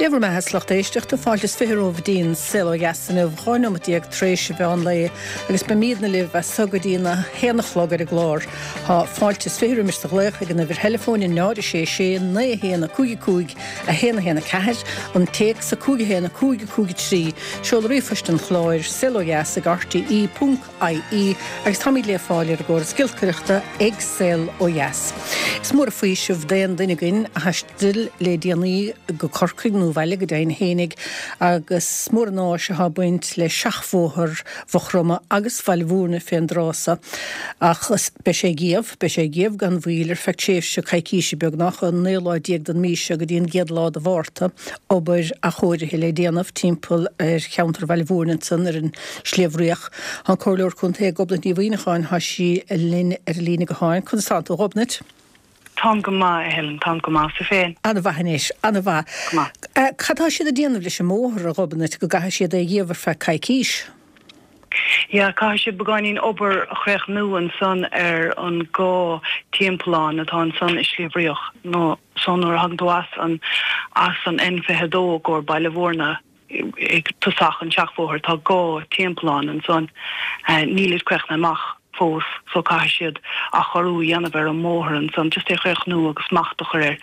Dé bhur mbeatha 's lucht éisteachta, fáilte is 20 romhaibh go dtí an Saol Ó Dheas inniu, 12 nóimeat tar éis an mheán lae agus beimídne libh as so go dtí an 1 a chlog ar an gclár. Tá fáilte is 20 roimis do ghlaoch ag an uimhir theileafóin 0 6 6 9 1 5 5 1 1 4, an téacs 5 1 5 5 3, seoladh ríomhphoist an chláir, saolodheas ag rte. IE, agus táimid le fáil ar an gcóras giolcaireachta ag Saol Ó Dheas. Is mór an faoiseamh d'aon duine againn a thaistil le déanaí go Corcaigh nó abhaile go deimhin fhéinig agus is mór an áis atá ag baint le seachbhóthar Mhaigh Chromtha agus Bhaile Mhúirne fén dtráth so. Ach beidh sé ag iamh, beidh sé ag iamh gan mhoill ar feadh tréimhse coicíse beagnach, ón naoú lá déag den mhí seo go dtí an gcéad lá de Mhárta, obair athchóirithe le déanamh timpeall ar cheantar Bhaile Mhúirne ansan ar an Sliabh Riach. Tá an Comhairleoir Contae Gobnait Ní Mhuimhneacháin, tá sí linn ar an líne gutháin. Conas tánn tú, a Ghobnait? Táim go maith, a Helen, táim go maith. Tú féin? An-mhaith anois, an-mhaith. Go maith. Cad tá siad ag déanamh leis an mbóthar, a Ghobnait, go gcaithfidh siad é a dhíobh ar feadh coicís? Yeah, caithfidh siad beagáinín obair a chríochnú ansan ar an dhá timpeallán atá ansan i Sliabh Riach, nó so nuair a thagann tú as an, as an N22 i gcomhair Baile Mhúirne, ag tosach an tseachbhóthair tá dhá timpeallán ansan. Nílid críochnaithe amach fós so caithfidh siad athchóiriú a dhéanamh ar an mbóthar ansan, just é a chríochnú agus smacht a chur air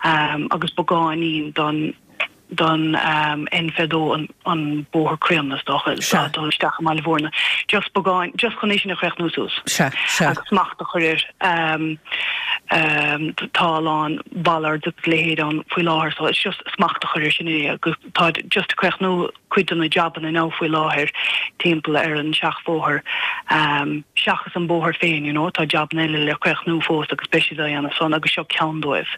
agus beagáinín don don N22 an bóthar críonna is dócha Sea. dul isteach i mBaile Mhúirne. Just beagán, just chun é sin a chríochnú suas. Sea, sea. Agus smacht a chur air. Tá a lán bollards agus a leithéid ann faoi láthair so it's just smacht a chur air sin é agus Táid just ag críochnú cuid de na jabanna now faoi láthair timpeall ar an seachbhóthar seachas an bóthar féin you know tá jabanna eile le críochnú fós agus beidh siad á dhéanamh san agus seo ceann dóibh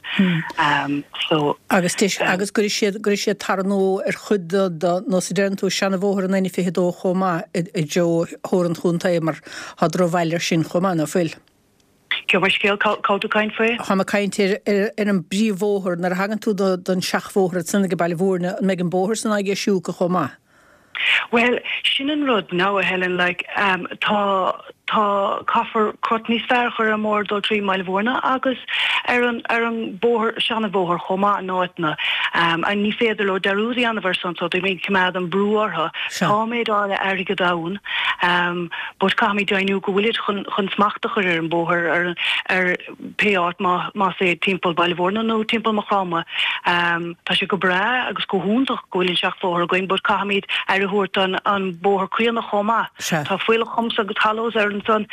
so. Agus deis agus gcuirfidh siad gcuirfidh siad tar nua ar chuid de de nós a deireann tú seanabhóthar an N22 chomh maith i dtreo Thoir an Chontae mar tá drochbhail air sin chomh maith ná fuil? Gabh mo leithscéal, cá bhfuil tú ag caint faoi? Táim ag caint ar ar an bpríomhbhóthar. Nuair a thagann tú don seachbhóthar ansan ag Baile Mhúirne, an mbeidh an bóthar san á dheisiú acu chomh maith? Bhuel, sin an rud now, a Helen, like, tá, tá, caithfear crot níos fearr a chur ar an mbóthar dul trí mBaile Mhúirne agus ar an, ar an bóthar, seanabhóthar chomh maith in áiteanna. And ní féidir leo dearúd a dhéanamh ar san so beidh mé ag coimeád an brú orthu. Sea. Tá méid áirithe airgead ann. But caithfimid deimhniú go bhfuilid chun chun smacht a chur ar an bóthar ar ar pé áit má más é timpeall Baile Mhúirne nó timpeall Maigh Chromtha. Tá sé go breá agus go hiontach go bhfuil an seachbhóthar againn but caithfimid aire a thabhairt don an bóthar críonna chomh maith. Sea. Tá fuílleach humps agus hollows ar ansan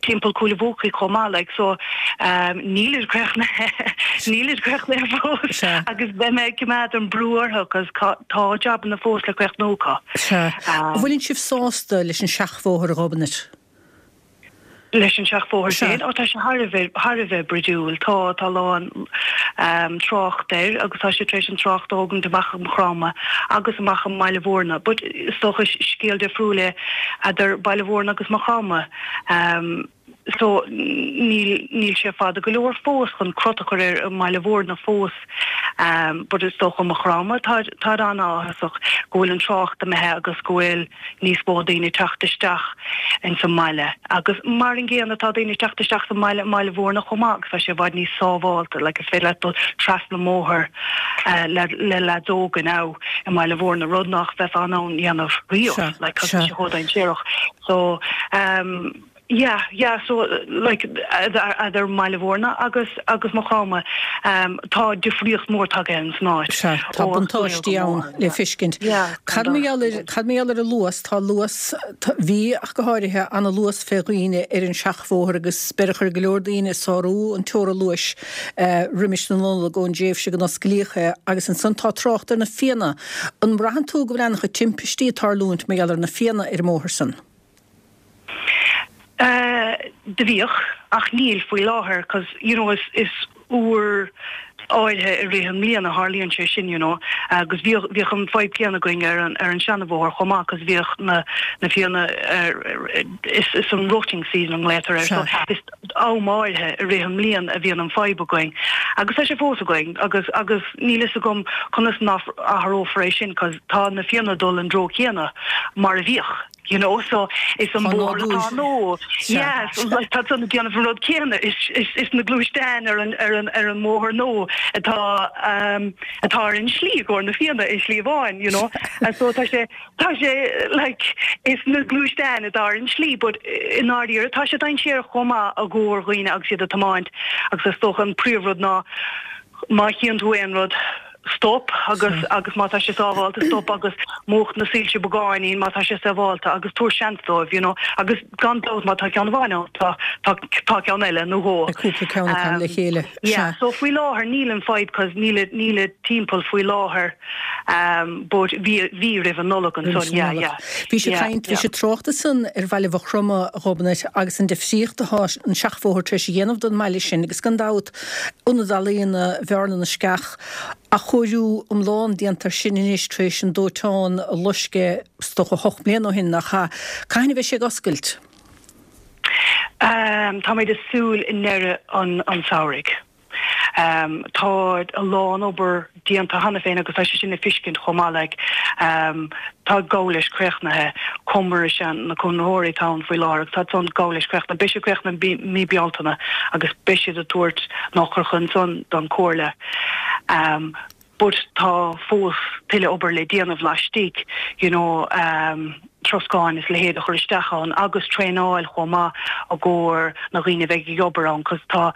timpeall Cúil a' Bhuacaigh chomh maith like so nílid críochnaithe nílid críochnaithe fós Sea. agus beidh mé ag coimeád an brú orthu 'cause tá jabanna fós le críochnú acu. Sea. An bhfuileann sibh sásta leis an seachbhóthar, a Ghobnait? Leis an seachbhóthar Sea. féin? Ó, tá sé thar a bheith, thar a bheith bruidiúil. Tá, tá a lán trácht air agus tá sé tar éis an trácht a thógaint amach i Maigh Chromtha agus amach i mBaile Mhúirne. But is dócha scéal difriúil é eadar Baile Mhúirne agus Maigh Chromtha. So níl, níl sé fada go leor fós chun crot a chur air i mBaile Mhúirne fós but is dócha Maigh Chromtha táid, táid an-áthasach go bhfuil an trácht imithe agus go bhfuil níos mó daoine ag teacht isteach ins an mbaile agus mar an gcéanna tá daoine ag teacht isteach sa mbaile i mBaile Mhúirne chomh maith agus tá sé i bhfad níos sábhálta like is féidir leat dul trasna an mbóthar le le leaids óga now i mBaile Mhúirne rud nach bheifeá in ann dhéanamh riamh like tá sé chomh dainséarach so um Yeah, yeah, so like eadar mBaile Mhúirne agus agus Maigh Chromtha tá difríocht mór tagtha ins an áit. Sea, tá buntáistí ann le feiscint. Yeah, Cad mar gheall ar, cad mar gheall ar an luas, tá luas, bhí ach go háirithe, ana luas fé dhaoine ar an seachbhóthar agus beireadh ar go leor daoine sárú an teora luais roimis na Nollag ón dtréimhse go n-osclaíodh é agus ansan tá trácht ar na fianna. An mbraitheann tú go bhfuil ana-chuid timpistí ag tarlúint mar gheall ar na fianna ar an mbóthar san? Do bhíodh, ach níl faoi láthair 'cause you know is is uair áirithe i rith an mbliain a tharlaíonn sé sin you know agus bhíodh bhíodh an fadhb céanna againn ar an ar an seanabhóthar chomh maith 'cause bhíodh na na fianna ar is is an rutting season a nglaotar air so is am áirithe i rith an mbliain a bhíonn an fadhb againn agus tá sé fós againn agus agus níl fhios agam conas nach athrófar é sin 'cause tá na fianna ag dul an dtreo céanna mar a bhíodh. You know so is an bóthar atá nua yeah so like tá san ag déanamh an rud céanna is is is na gluaisteáin ar an ar an ar an mbóthar nua atá um atá ar an slí i gcomhair na Fianna i Sliabh Bháin you know and so tá sé tá sé like is na gluaisteáin atá ar an slí but i ndáiríre tá sé dainséarach chomh maith i gcomhair dhaoine agus iad ag tiomáint agus is dócha an príomhrud ná má chíonn tú aon rud, stop agus agus má tá sé sábhálta, stop agus múch na soilse beagáinín má tá sé sábhálta agus tabhair seans dóibh, you know. Agus gan dabht má tá ceann amháin ann, tá tá tá ceann eile nó dhó. Beidh cúpla ceann acu le chéile, sea. Yeah, so faoi láthair níl an fadhb 'cause níl níl timpeall faoi láthair but bhí bhí roimh an Nollaig ansan, yeah, yeah. Bhí sé ag caint, bhí sé ag trácht ansan ar bhaile Mhaigh Chromtha, a Ghobnait, agus an difríocht atá an seachbhóthar tar éis a dhéanamh don mbaile sin agus gan dabht Ionad Ealaíona Bhearna na Sceach, athchóiriú iomlán déanta air sin anois tar éis an dóiteán a loisc é is dócha 8 mbliana ó shin, nach ea? Cathain a bheidh sé ag oscailt? Táimid ag súil i ndeireadh an tsamhraidh. Tá a lán obair déanta cheana féin agus tá sé sin le feiscint chomh maith like tá ag gabháil leis críochnaithe, Comhar is ea na conraitheoirí atá ann faoi láthair agus tá san ag gabháil leis críochnaithe. Beidh sé críochnaithe i mí Bealtaine agus beidh siad ag tabhairt an eochair ansan don Comhairle. But tá fós tuilleadh obair le déanamh laistigh you know troscáin is a leithéid a chur isteach ann agus traenáil chomh maith i gcomhair na dhaoine a bheidh ag obair ann 'cause tá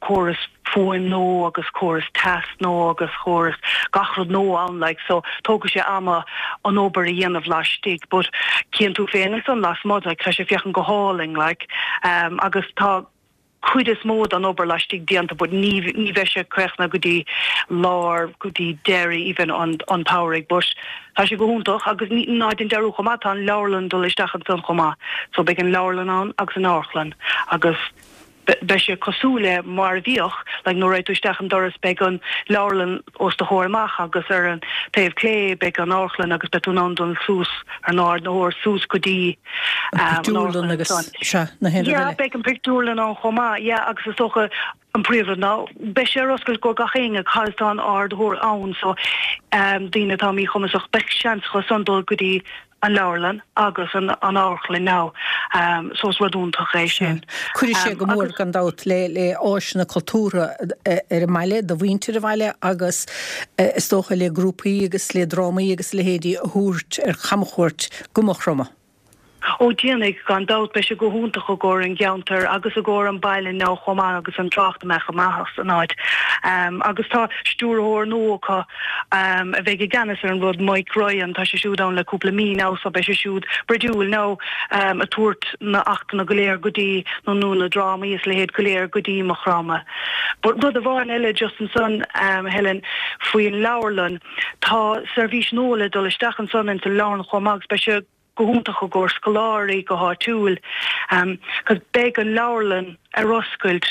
córas fuaim nua agus córas teas nua agus córas gach rud nua ann like so tógfaidh sé ama an obair a dhéanamh laistigh but cíonn tú féin ansan lasmuigh like tá sé féachaint go hálainn like agus tá cuid is mó den obair laistigh déanta but ní ní bheidh sé críochnaithe go dtí lár go dtí deireadh even an an tsamhraidh but tá sé go hiontach agus ní ná déan dearúd chomh maith tá an leabharlann dul isteach ansan chomh maith so beidh an leabharlann ann agus an amharclann agus beidh sé cosúil le mar a bhíodh like nuair a raghaidh tú isteach an doras beidh an leabharlann os do chomhair amach agus ar an taobh clé beidh an amharclann agus beidh tú in ann dul suas ar an ardaitheoir suas go dtí An pictiúrlann agus, sea, na haon rud eile. Yeah, beidh an pictiúrlann ann chomh maith, yeah, agus is dócha an príomhrud ná beidh sé ar oscailt go gach éinne cos tá an ardaitheoir ann so daoine atá míchumasach beidh seans acu san dul go dtí an leabharlann agus an amharclann now so is rud iontach é sin. Cuirfidh sé go mór gan dabht le le áiseanna cultúrtha ar an mbaile, do mhuintir an bhaile agus is dócha le grúpaí agus le drámaí agus a leithéidí a thabhairt ar chamchuairt go Maigh Chromtha. Ó déanfaidh, gan dabht. Beidh sé go hiontach i gcomhair an gceantair agus i gcomhair an baile now chomh maith agus an trácht a mbeadh amach as an áit. Agus tá stiúrthóir nua acu a bheidh i gceannas ar an rud, Mike Ryan, tá sé siúd ann le cúpla mí now so beidh sé siúd bruidiúil now ag tabhairt na achtanna go léir go dtí nó nó na drámaí is leithéid go léir go dtí Maigh Chromtha. But rud amháin eile just ansan Helen faoin leabharlann, Tá seirbhís nua le dul isteach ansan ins an leabharlann chomh maith agus beidh sé go hiontach i gcomhair scoláirí go háitiúil 'cause beidh an leabharlann ar oscailt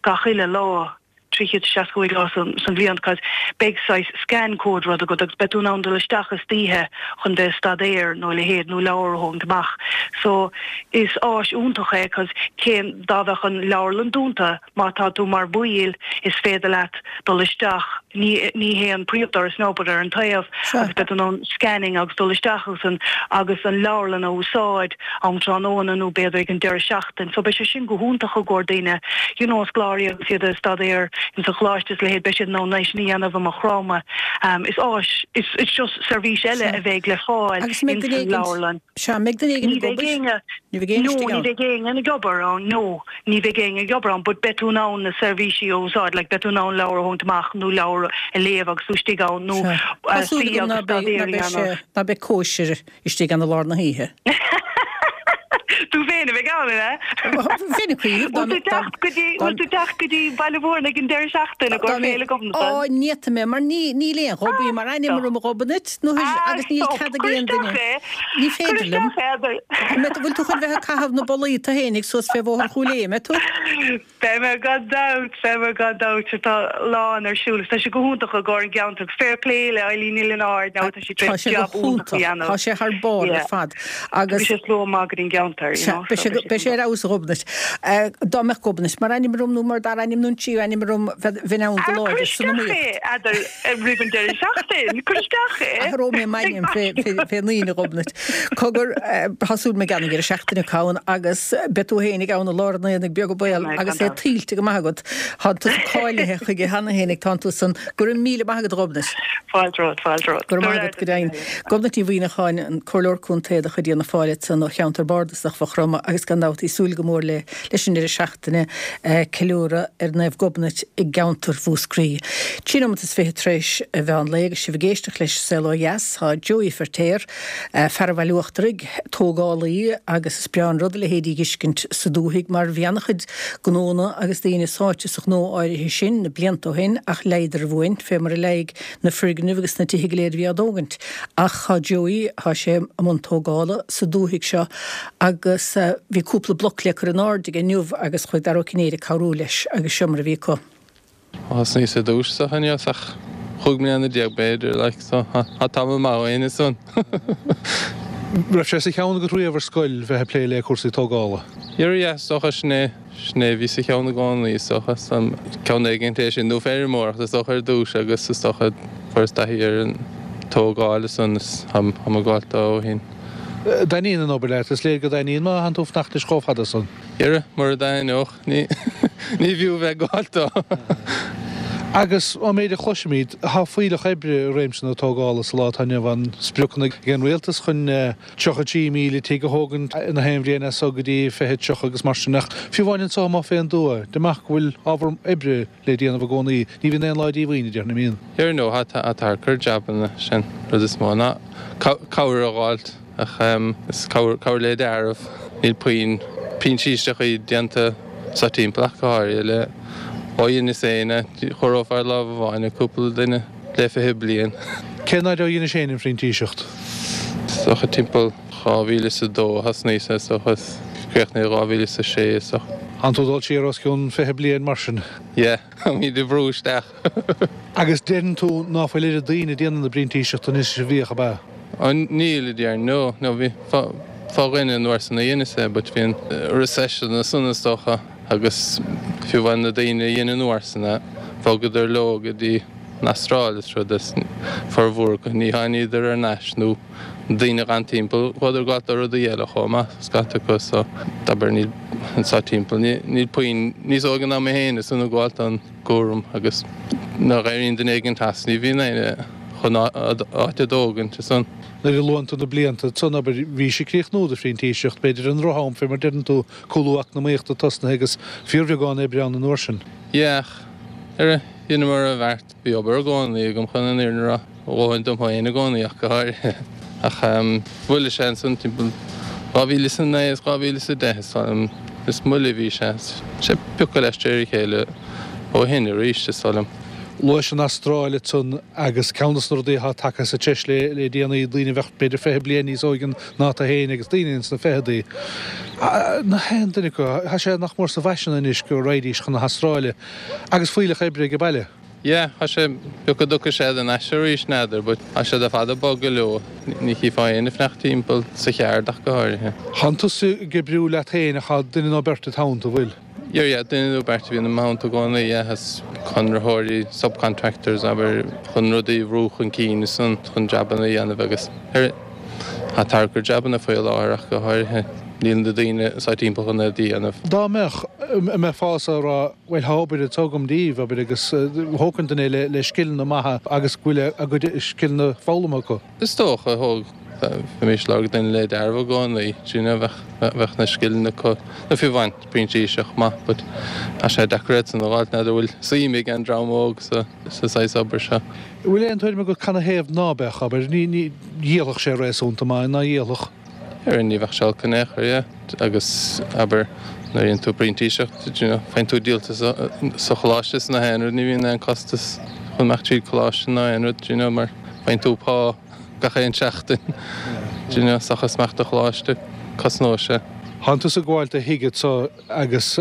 gach uile lá, 365 lá san bhliain 'cause beidh saghas scan code rud agat agus beidh tú in ann dul isteach istoíche chun bheith ag staidéar nó a leithéid nó leabhar a thógaint amach. So is áis iontach é 'cause cén dá bheadh an leabharlann dúnta Má tá tú mar bhaill, is féidir leat dul isteach, ní ní hé an príomhdoras now but ar an taobh, agus beidh tú in ann scanning agus dul isteach agus an agus an leabharlann a úsáid am tráthnóna nó b'fhéidir ag an deireadh seachtain. So beidh sé sin go hiontach i gcomhair daoine, you know, scoláirí agus iad ag staidéar ins an choláiste is a leithéid, beidh siad in ann é sin a dhéanamh i Maigh Chromtha. Is áis, is it's just seirbhís eile a bheidh le fáil ins an leabharlann. Sea, mbeidh duine éigin ag obair? Ní bheidh éinne istigh ann. No, ní bheidh éinne ag obair ann, no. Ní bheidh éinne ag obair ann but beidh tú in ann na seirbhísí a úsáid, like beidh tú in ann leabhar a thógaint amach nó leabhar a léamh agus tú istigh ann nó Tá súil agam ná beidh, ná beidh sé, ná beidh cóisir istigh ann i lár na hoíche. Tú féin a bheidh ann, an ea? Bheinn ag cuimhneamh dá Bhfuil tú teacht go dtí, bhfuil tú teacht go dtí Baile Mhúirne ag an deireadh seachtaine i gcomhair Féile Ghobnatan? Á, ní fhéadfaidh mé, mar ní, níl aon ghobaí mar ainm orm a Ghobnait, nó agus níl cead ag aon duine. Ní féidir liom. Bhfuil tú chun bheith ag caitheamh na bolaí tú fhéinig suas fé Bhóthar Chúil Aodha, mbeidh tú? Beidh mé gan dabht, beidh mé gan dabht. Tá a lán ar siúl agus tá sé go hiontach i gcomhair an gceantar agus fair play le Eileen Ní Lionáird now tá sí tar éis jab iontach a dhéanamh. Tá sé thar barr ar fad agus. Tá sé slua maith go dtí an gceantar. air, you know. Beidh sé beidh sé ar fheabhas a Ghobnait. Dá mbeadh Gobnait mar ainm orm nó mar dara ainm nó an tríú ainm orm bheinn ann go láidir san iomaíocht. Cuir isteach é, eadar roimh an deireadh seachtaine, cuir isteach é. Athróidh mé m'ainm fé fén Aoine a Ghobnait. Cogar, tá súil agam ag an deireadh seachtaine ann agus beidh tú féin ag ann i lár an aonaigh beag an baol agus é tuillte go maith agat. Tá tusa cáilithe chuige cheana féin, tánn tú san. Go raibh míle maith agat a Ghobnait. Fáilte romhat, fáilte romhat. Go raibh maith agat, go deimhin. Gobnait Ní Mhuimhneacháin, an Comhairleoir Contae de chuid Fhianna Fáil ansan ó cheantar bardasach Mhaigh Chromtha agus gan dabht í súil go mór le leis an deireadh seachtaine ceiliúradh ar Naomh Gobnait i gceantar Mhúscraí. 23 nóimeat tar éis a mheán lae agus sibh ag éisteacht leis Saol Ó Dheas, tá Joey Feirtéar, fear an Bhaile Uachtaraigh, tógálaí agus is breá an rud a leithéidí a dh'fheiscint sa dúthaigh mar bhí ana-chuid gnónna agus daoine sáite sa ghnó áirithe sin na blianta ó shin ach leigheadar a bhfuain fé mar a leigh na foirgnimh agus na tithe go léir a bhí á dtógaint. Ach tá Joey, tá sé i mbun tógála sa dúthaigh seo agus bhí cúpla bloc le cur in airde aige inniu agus chuaigh Dara Ó Cinnéide ag cabhrú leis agus seo mar a bhí acu. Thosnaíos ar dtús sa choinneos ach chúig mbliana déag b'fhéidir like so tá tamall maith ó shin ansan. Raibh sé sa cheann agat riamh ar scoil bheith ag plé le cúrsaí tógála? Yeah yeah is dócha sin é sin é a bhí sa cheann i gcónaí is dócha ceann éigint é sin nó feirmeoireacht is dócha ar dtús agus is dócha fuaireas taithí ar an tógáil ansan is táim ag gabháil dó ó shin. Dtaitníonn an obair leat? Is léir go dtaitníonn má thánn tú ag fanacht leis chomh fada san. Yeah mura dtaitneodh ní bhfiú bheith ag gabháil dó. Agus ón méid a chloisimid, tá fuílleach oibre i réimse na tógála sa lá atá inniu ann. Spriocanna ag an rialtas chun 33,000 tigh a thógaint in aon bhliain as so go dtí 2030 agus mar sin. Ach fiú amháin anso amuigh fén dtuath, amach go bhfuil ábhar oibre le déanamh i gcónaí. Ní bhíonn aon lá díomhaoin, a déarfainn, an mbíonn? Here no, tá ag cur jabanna, sin rud is mó ná cabhair a dh'fháilt. Ach is cabhair le dealramh. Níl puinn printíseachtaí déanta sa timpeall ach go háirithe le ó dheineas féin é. Chomhaireofá ar lámh amháin cúpla duine le 20 bliain. Cén fhaid ó dheinis féin an phrintíseacht? Is dócha timpeall 2002 a thosnaíos is dócha is críochnaíodh 2006 is dócha. Tánn tú ag dul siar os cionn 20 bliain mar sin? Yeah, táimid ag brú isteach. Agus deireann tú ná fuil oiread daoine ag déanamh na bprintíseachta anois is a bhíodh, ab ea? Ó níl, a déarfainn, no, no, bhí fá dhuine an uair san a dheineas é but bhí an recession ansan is dócha agus fiú amháin na daoine a dhein an uair san é, bhogadar leo go dtí an Astráil is rud is formhór acu ní tháiníodar ar n-ais nó na daoine a dh'fhan timpeall chuadar ag gabháil do rudaí eile chomh maith scata acu so abair níl anso timpeall níl puinn níos óige ná mé féin is ag gabháil don gcúram agus nuair a éiríonn duine éigint as ní bhíonn éinne chun áit a dtógaint ansan. Nuair a luann tú na blianta san, abair, bhís ag críochnú do phrintíseacht, b'fhéidir i ndroch-am, fé mar deireann tú, cúlú eacnamaíochta tosnaithe agus fíorbheagán oibre ann an uair sin. Yeah, ach ar dheineamar an bheart, bhí obair i gcónaí agam chun an fhírinne a rá. A dhóthain dom féin i gcónaí ach go háirithe. Ach mhoilligh sé ansan timpeall 2009 is 2010 is dóigh liom. Is moille a bhí sé. Sé piocadh leis de réir a chéile ó shin arís is dóigh liom. Luais an Astráil ansan agus ceann de na rudaí atá tagtha sa treis le déanaí, daoine a bheadh b'fhéidir 20 bliain níos óige ná tú féin agus daoine ins na ficheadaí. Nach aon duine acu, tá sé nach mór sa bhfaisean anois go raghaidís chun na hAstráile agus fuílleach oibre ag baile. Yeah, tá sé, b'fhéidir go dtiocfaidh siad thar n-ais arís, n'fheadar, but tá siad ar fad ag bogadh leo, ní chífeá éinne ag fanacht timpeall, sa cheard ach go háirithe. Tánn tusa ag oibriú leat féin ach tá duine nó beirt id theannta, bhfuil? Yeah, yeah, duine nó beirt a bhíonn i mo theannta i gcónaí, yeah, is conraitheoirí, subcontractors, abair, chun rudaí a bhrú chun cinn is chun jabanna a dhéanamh agus ar, tá tarrac ar jabanna faoi láthair ach go háirithe, níl na daoine sa timpeall chun iad a dhéanamh. Dá mbeadh, an mbeifeása ag rá, Bhuel, tá obair anseo agam daoibh, abair, agus thógfainn duine le scileanna maithe agus go bhfuil a gcuid scileanna foghlamtha acu. Is dócha, thóg, bheimis ag lorg duine le dealramh i gcónaí, do you know, bheadh, bheadh na scileanna acu, nó fiú amháin printíseach maith, but tá sé deacair iad san a dh'fháilt, n'fheadar bhfuil suim ag an dream óg sa, sa saghas obair seo. Bhfuil aon tuairim agat canathaobh ná beadh, abair, ní, ní, dhíolfadh sé réasúnta maith, ná dhíolfadh? Ar ní bheadh sé olc in aon chor, yeah. Agus, abair, nuair a dhéanann tú printíseacht, do you know, faigheann tú díoltas sa choláiste is nach aon rud, ní bhíonn aon costas chun imeacht tríd coláiste ná aon rud, do you know, mar faigheann tú pá gach aon seachtain, do you know, seachas imeacht do choláiste, cosnóidh sé. Thánn tusa ag gabháil do thigh anso agus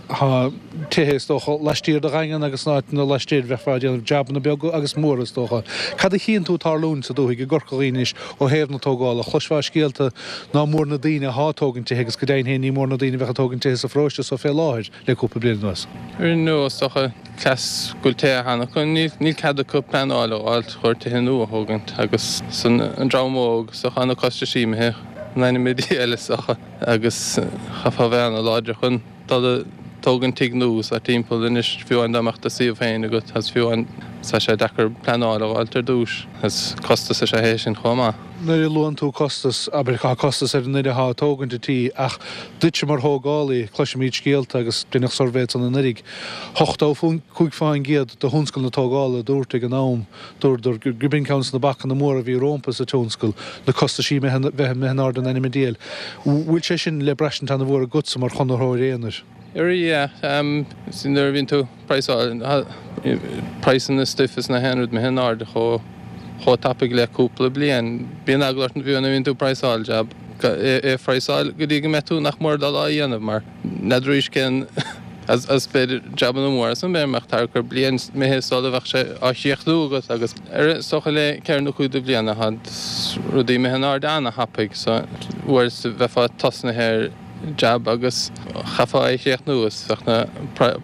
tá tithe is dócha laistiar de Dhaingean agus in áiteanna laistiar bheifeá ag déanamh jabanna beaga agus móra is dócha. Cad a chíonn tú ag tarlúint sa dúthaigh i gCorca Dhuibhne anois ó thaobh na tógála? Chloisfeá scéalta ná mór na daoine athá ag tógaint tithe agus go deimhin féin ní mór na daoine a bheadh ag tógaint tithe sa pharóiste so fé láthair le cúpla bliain anuas. Ar ndóigh is dócha cleas go bhfuil tithe cheana acu níl cead acu pleanáil a fháilt chun tithe nua a thógaint agus san an dream óg is dócha na costaisí imithe in ainm a Dhia is dócha agus chaithfeá a bheith ana-láidir chun dul ag tógaint tigh nua sa timpeall anois fiú amháin dá mbeadh do suíomh féin agat agus fiú amháin tá sé deacair pleanáil a fháilt ar dtús agus costas is ea é sin chomh maith. Nuair a luann tú costas, abair, tá costas ar an nduine atá ag tógaint an tí ach duitse mar thógálaí, cloisimid scéalta agus deineadh suirbhé ansan anuiridh, 85% de thionscal na tógála a dúirt ag an am, Dúradar gurb in ceann de na bacanna móra a bhí rómpa sa tionscal, na costaisí bheith imithe in airde in ainm an diabhail. Bhfuil sé sin le braistint ana-mhór agatsa mar chonraitheoir aonair? Yeah, nuair a bhíonn tú praghsáil, praghsanna stuif is na haon rud imithe in airde chomh chomh tapaidh le cúpla bliain. Bíonn eagla ort fiú nuair a bhíonn tú ag praghsáil jab, é a phraghsáil go dtí go mbeidh tú nach mór dul á dhéanamh mar n'fheadar arís cén As b'fhéidir jabanna móra san b'fhéidir go mbeadh thart ar bliain imithe sula bheadh sé á chríochnú agat agus ar is dócha le ceithre nó cúig de bhliana tá rudaí imithe in airde ana-thapaidh so uair is bheifeá tosnaithe ar jab agus chaithfeá é a chríochnú is bheadh na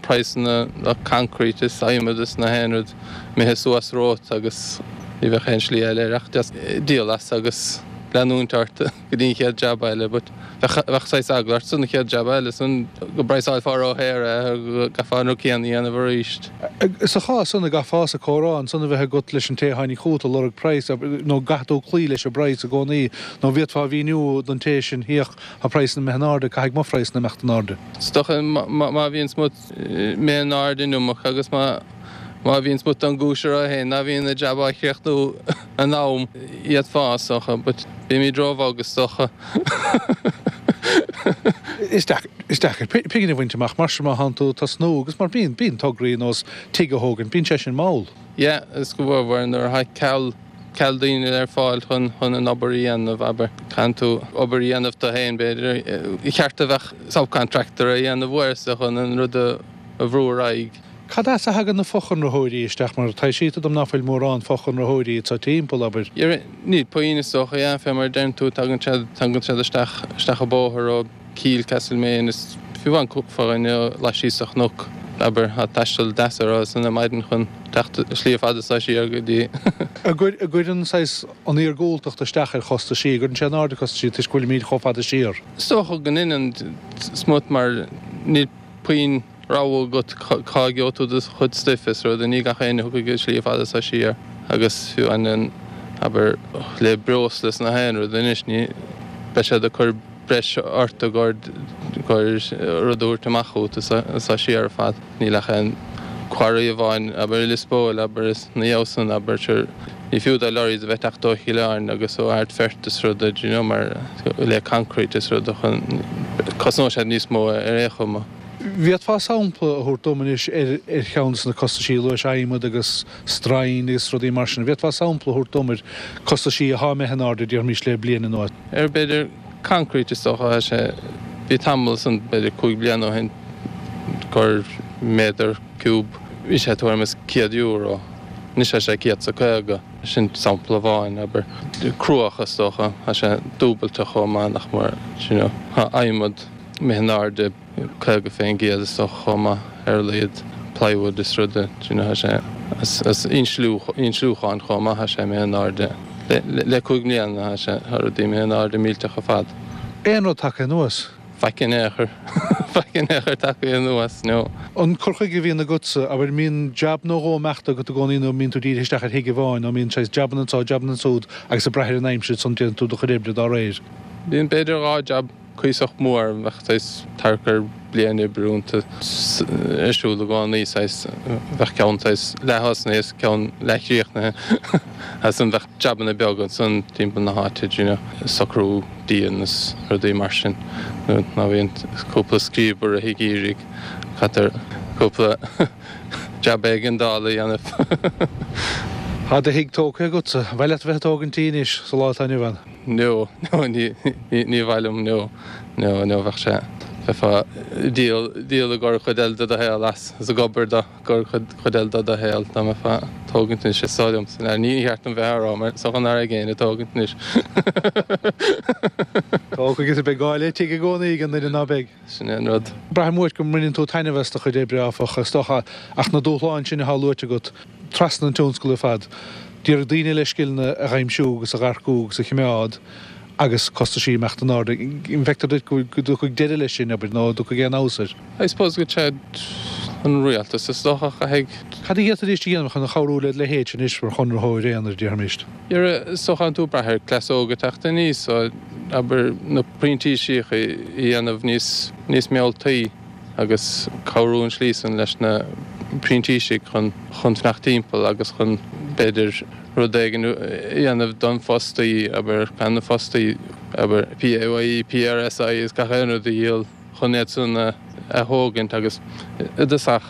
praghsanna na concrete is adhmad is na haon rud imithe suas romhat agus ní bheadh aon slí eile air ach just díol as agus leanúint ort. go dtí an chéad jab eile but bheadh saghas eagla ort san chéad jab eile san go bpraghsálfá ródhaor é go gcaithfeá an rud céanna a dhéanamh arís. Sa chás san, an gcaithfeása comhrá ansan a bheith agat leis an té a tháinig chugat ag lorg praghas nó an gcaithfidh tú cloí leis an bpraghas i gcónaí nó an bhféadfá a mhíniú don té sin féach tá praghsanna imithe in airde caithfidh mo phraghsanna imeacht in airde. Is dócha má bhíonn smut imithe in airde an iomarca agus má má bhíonn smut den gcúis orthu féin ná bhíonn an jab á chríochnú in am d'fhéadfá is dócha but bímid róbhog is dócha. Is deacair pingin a bhaint amach mar sin má thánn tú ag tosnú agus mar bíonn bíonn tograí ar nós tigh a thógaint bíonn sé sin mall. Yeah is go mhór nuair atá ceal ceal daoine ar fáil chun chun an obair a dhéanamh abair caitheann tú obair a dhéanamh tú féin b'fhéidir ba cheart a bheadh subcontractor a dhéanamh uaireanta chun an rud a bhrú ar aghaidh. Cad as a thagann na fochonraitheoirí isteach mar taibhsítear dom ná fuil mórán fochonraitheoirí anso timpeall, abair. Níl puinn is dócha, yeah, fé mar a deireann tú, tagann siad, tagann siad isteach, isteach an bóthar ó Keel, Castlemaine is fiú amháin cúpla dhuine laistíos de chnoc, abair, tá taisteal deas orthu san ar maidin chun teacht slí fada so siar go dtí. An gcuireann saghas an iargúltacht isteach ar chostaisí, an gcuireann sé in airde costaisí toisc go bhfuilimíd chomh fada siar? Is dócha go ndeineann smut mar níl puinn. rogha agat cá gheobhaidh tú do chuid stuif is rud, ní gach éinne a thiocfaidh an slí fada so siar agus fiú an, abair, le breosla is na haon rud anois ní, beidh siad ag cur breis ort i gcomhair rud a thabhairt amach chugat anso siar ar fad. Níl ach aon quarry amháin, abair, i Lios Póil, abair, is na dhiaidh san, abair, sure, ní fiú do lorries a bheith ag teacht ó Chill Airne agus ó Ardfert is rud, do you know, mar le concrete is rud chun, cosnóidh siad níos mó ar aon chuma. Bhféadfá sampla a thabhairt dom anois ar cheann de na costaisí a luais, adhmad agus stroighin agus rudaí mar sin. Bhféadfá sampla a thabhairt dom ar costaisí athá imithe in airde, déarfaimis, le bliain anuas? Ar b'fhéidir concrete is dócha, tá sé, bhí tamall ansan, b'fhéidir 5 bliana ó shin, gur méadar ciúb, bhí sé tuairim is €100, anois tá sé 150, sin sampla amháin, abair. Cruach is dócha, tá sé dúbailte chomh maith nach mór, you know, tá adhmad imithe in airde. 50% is dócha chomh maith ar a laghad, plywood is rud do you know tá sé as insliúchán chomh maith tá sé imithe in airde le 5 mbliana tá sé tá rudaí imithe in airde millteach ar fad. Aon rud tagtha anuas? Faic in aon chor, faic in aon chor tagtha anuas, no. An cur chuige a bhíonn agatsa, abair, an mbíonn jab nó dhó imeachta agat i gcónaí nó an mbíonn tú dírithe isteach ar thigh amháin nó an mbíonn saghas jabanna anso, jabanna ansúd agus ag brath ar an aimsir ansan déanann tú do chuid oibre dá réir? Bíonn b'fhéidir 2 jab cuíosach mór, bheadh saghas thart ar bliain oibre iontu ar siúl i gcónaí, saghas, bheadh ceann saghas leath-thosnaithe is ceann leath-chríochnaithe agus ansan bheadh jabanna beaga ansan timpeall na háite, do you know, socrú díon is rudaí mar sin, nuair a bhíonn cúpla scríob i rith an gheimhridh, caitear cúpla jab éigeandála a dhéanamh. Tá do thigh tógtha agatsa, an mhaith leat a bheith ag tógaint tí anois sa lá atá inniu ann? No, no, ní, ní, ní mhaith liom, no. Nó nó bheadh sé, bheifeá ag díol, díol i gcomhair chuid eile de do shaol as, is ag obair do gcomhair chuid, chuid eile de do shaol dá mbeifeá ag tógaint anois is dóigh liomsa. Ní cheart dom bheith á rá mar is dócha nach raibh éinne ag tógaint anois. Tóg agus beidh gá le tigh i gcónaí ag an duine ná beidh. Sin é an rud. Braithim uait go mbaineann tú taitneamh as do chuid oibre, áfach, is dócha, ach na dúshláin sin atá luaite agat, trasna an tionscail ar fad, d'iarraidh daoine le scileanna a dh'aimsiú agus a dh'earcú agus a chimeád agus costaisí imeacht in airde. An bhfeictear duit go dtiocfaidh deireadh leis sin, abair, nó an dtiocfaidh aon fheabhas air? I suppose go dtí an rialtas is dócha a chaithfidh. Cad a d'fhéadfaidís a dhéanamh chun chabhrú led leithéidse anois mar chonraitheoir aonair, déarfaimis? Is dócha tánn tú ag brath ar cleas óg ag teacht aníos, so abair na printíseacha a dhéanamh níos níos mealltaí agus cabhrú an slí san leis na printísigh chun chun fanacht timpeall agus chun b'fhéidir rud éigin a dhéanamh don fostaí, abair gan na fostaí abair PAYE, PRSI is gach aon rud a dhíol chun iad san a thógaint agus i dtosach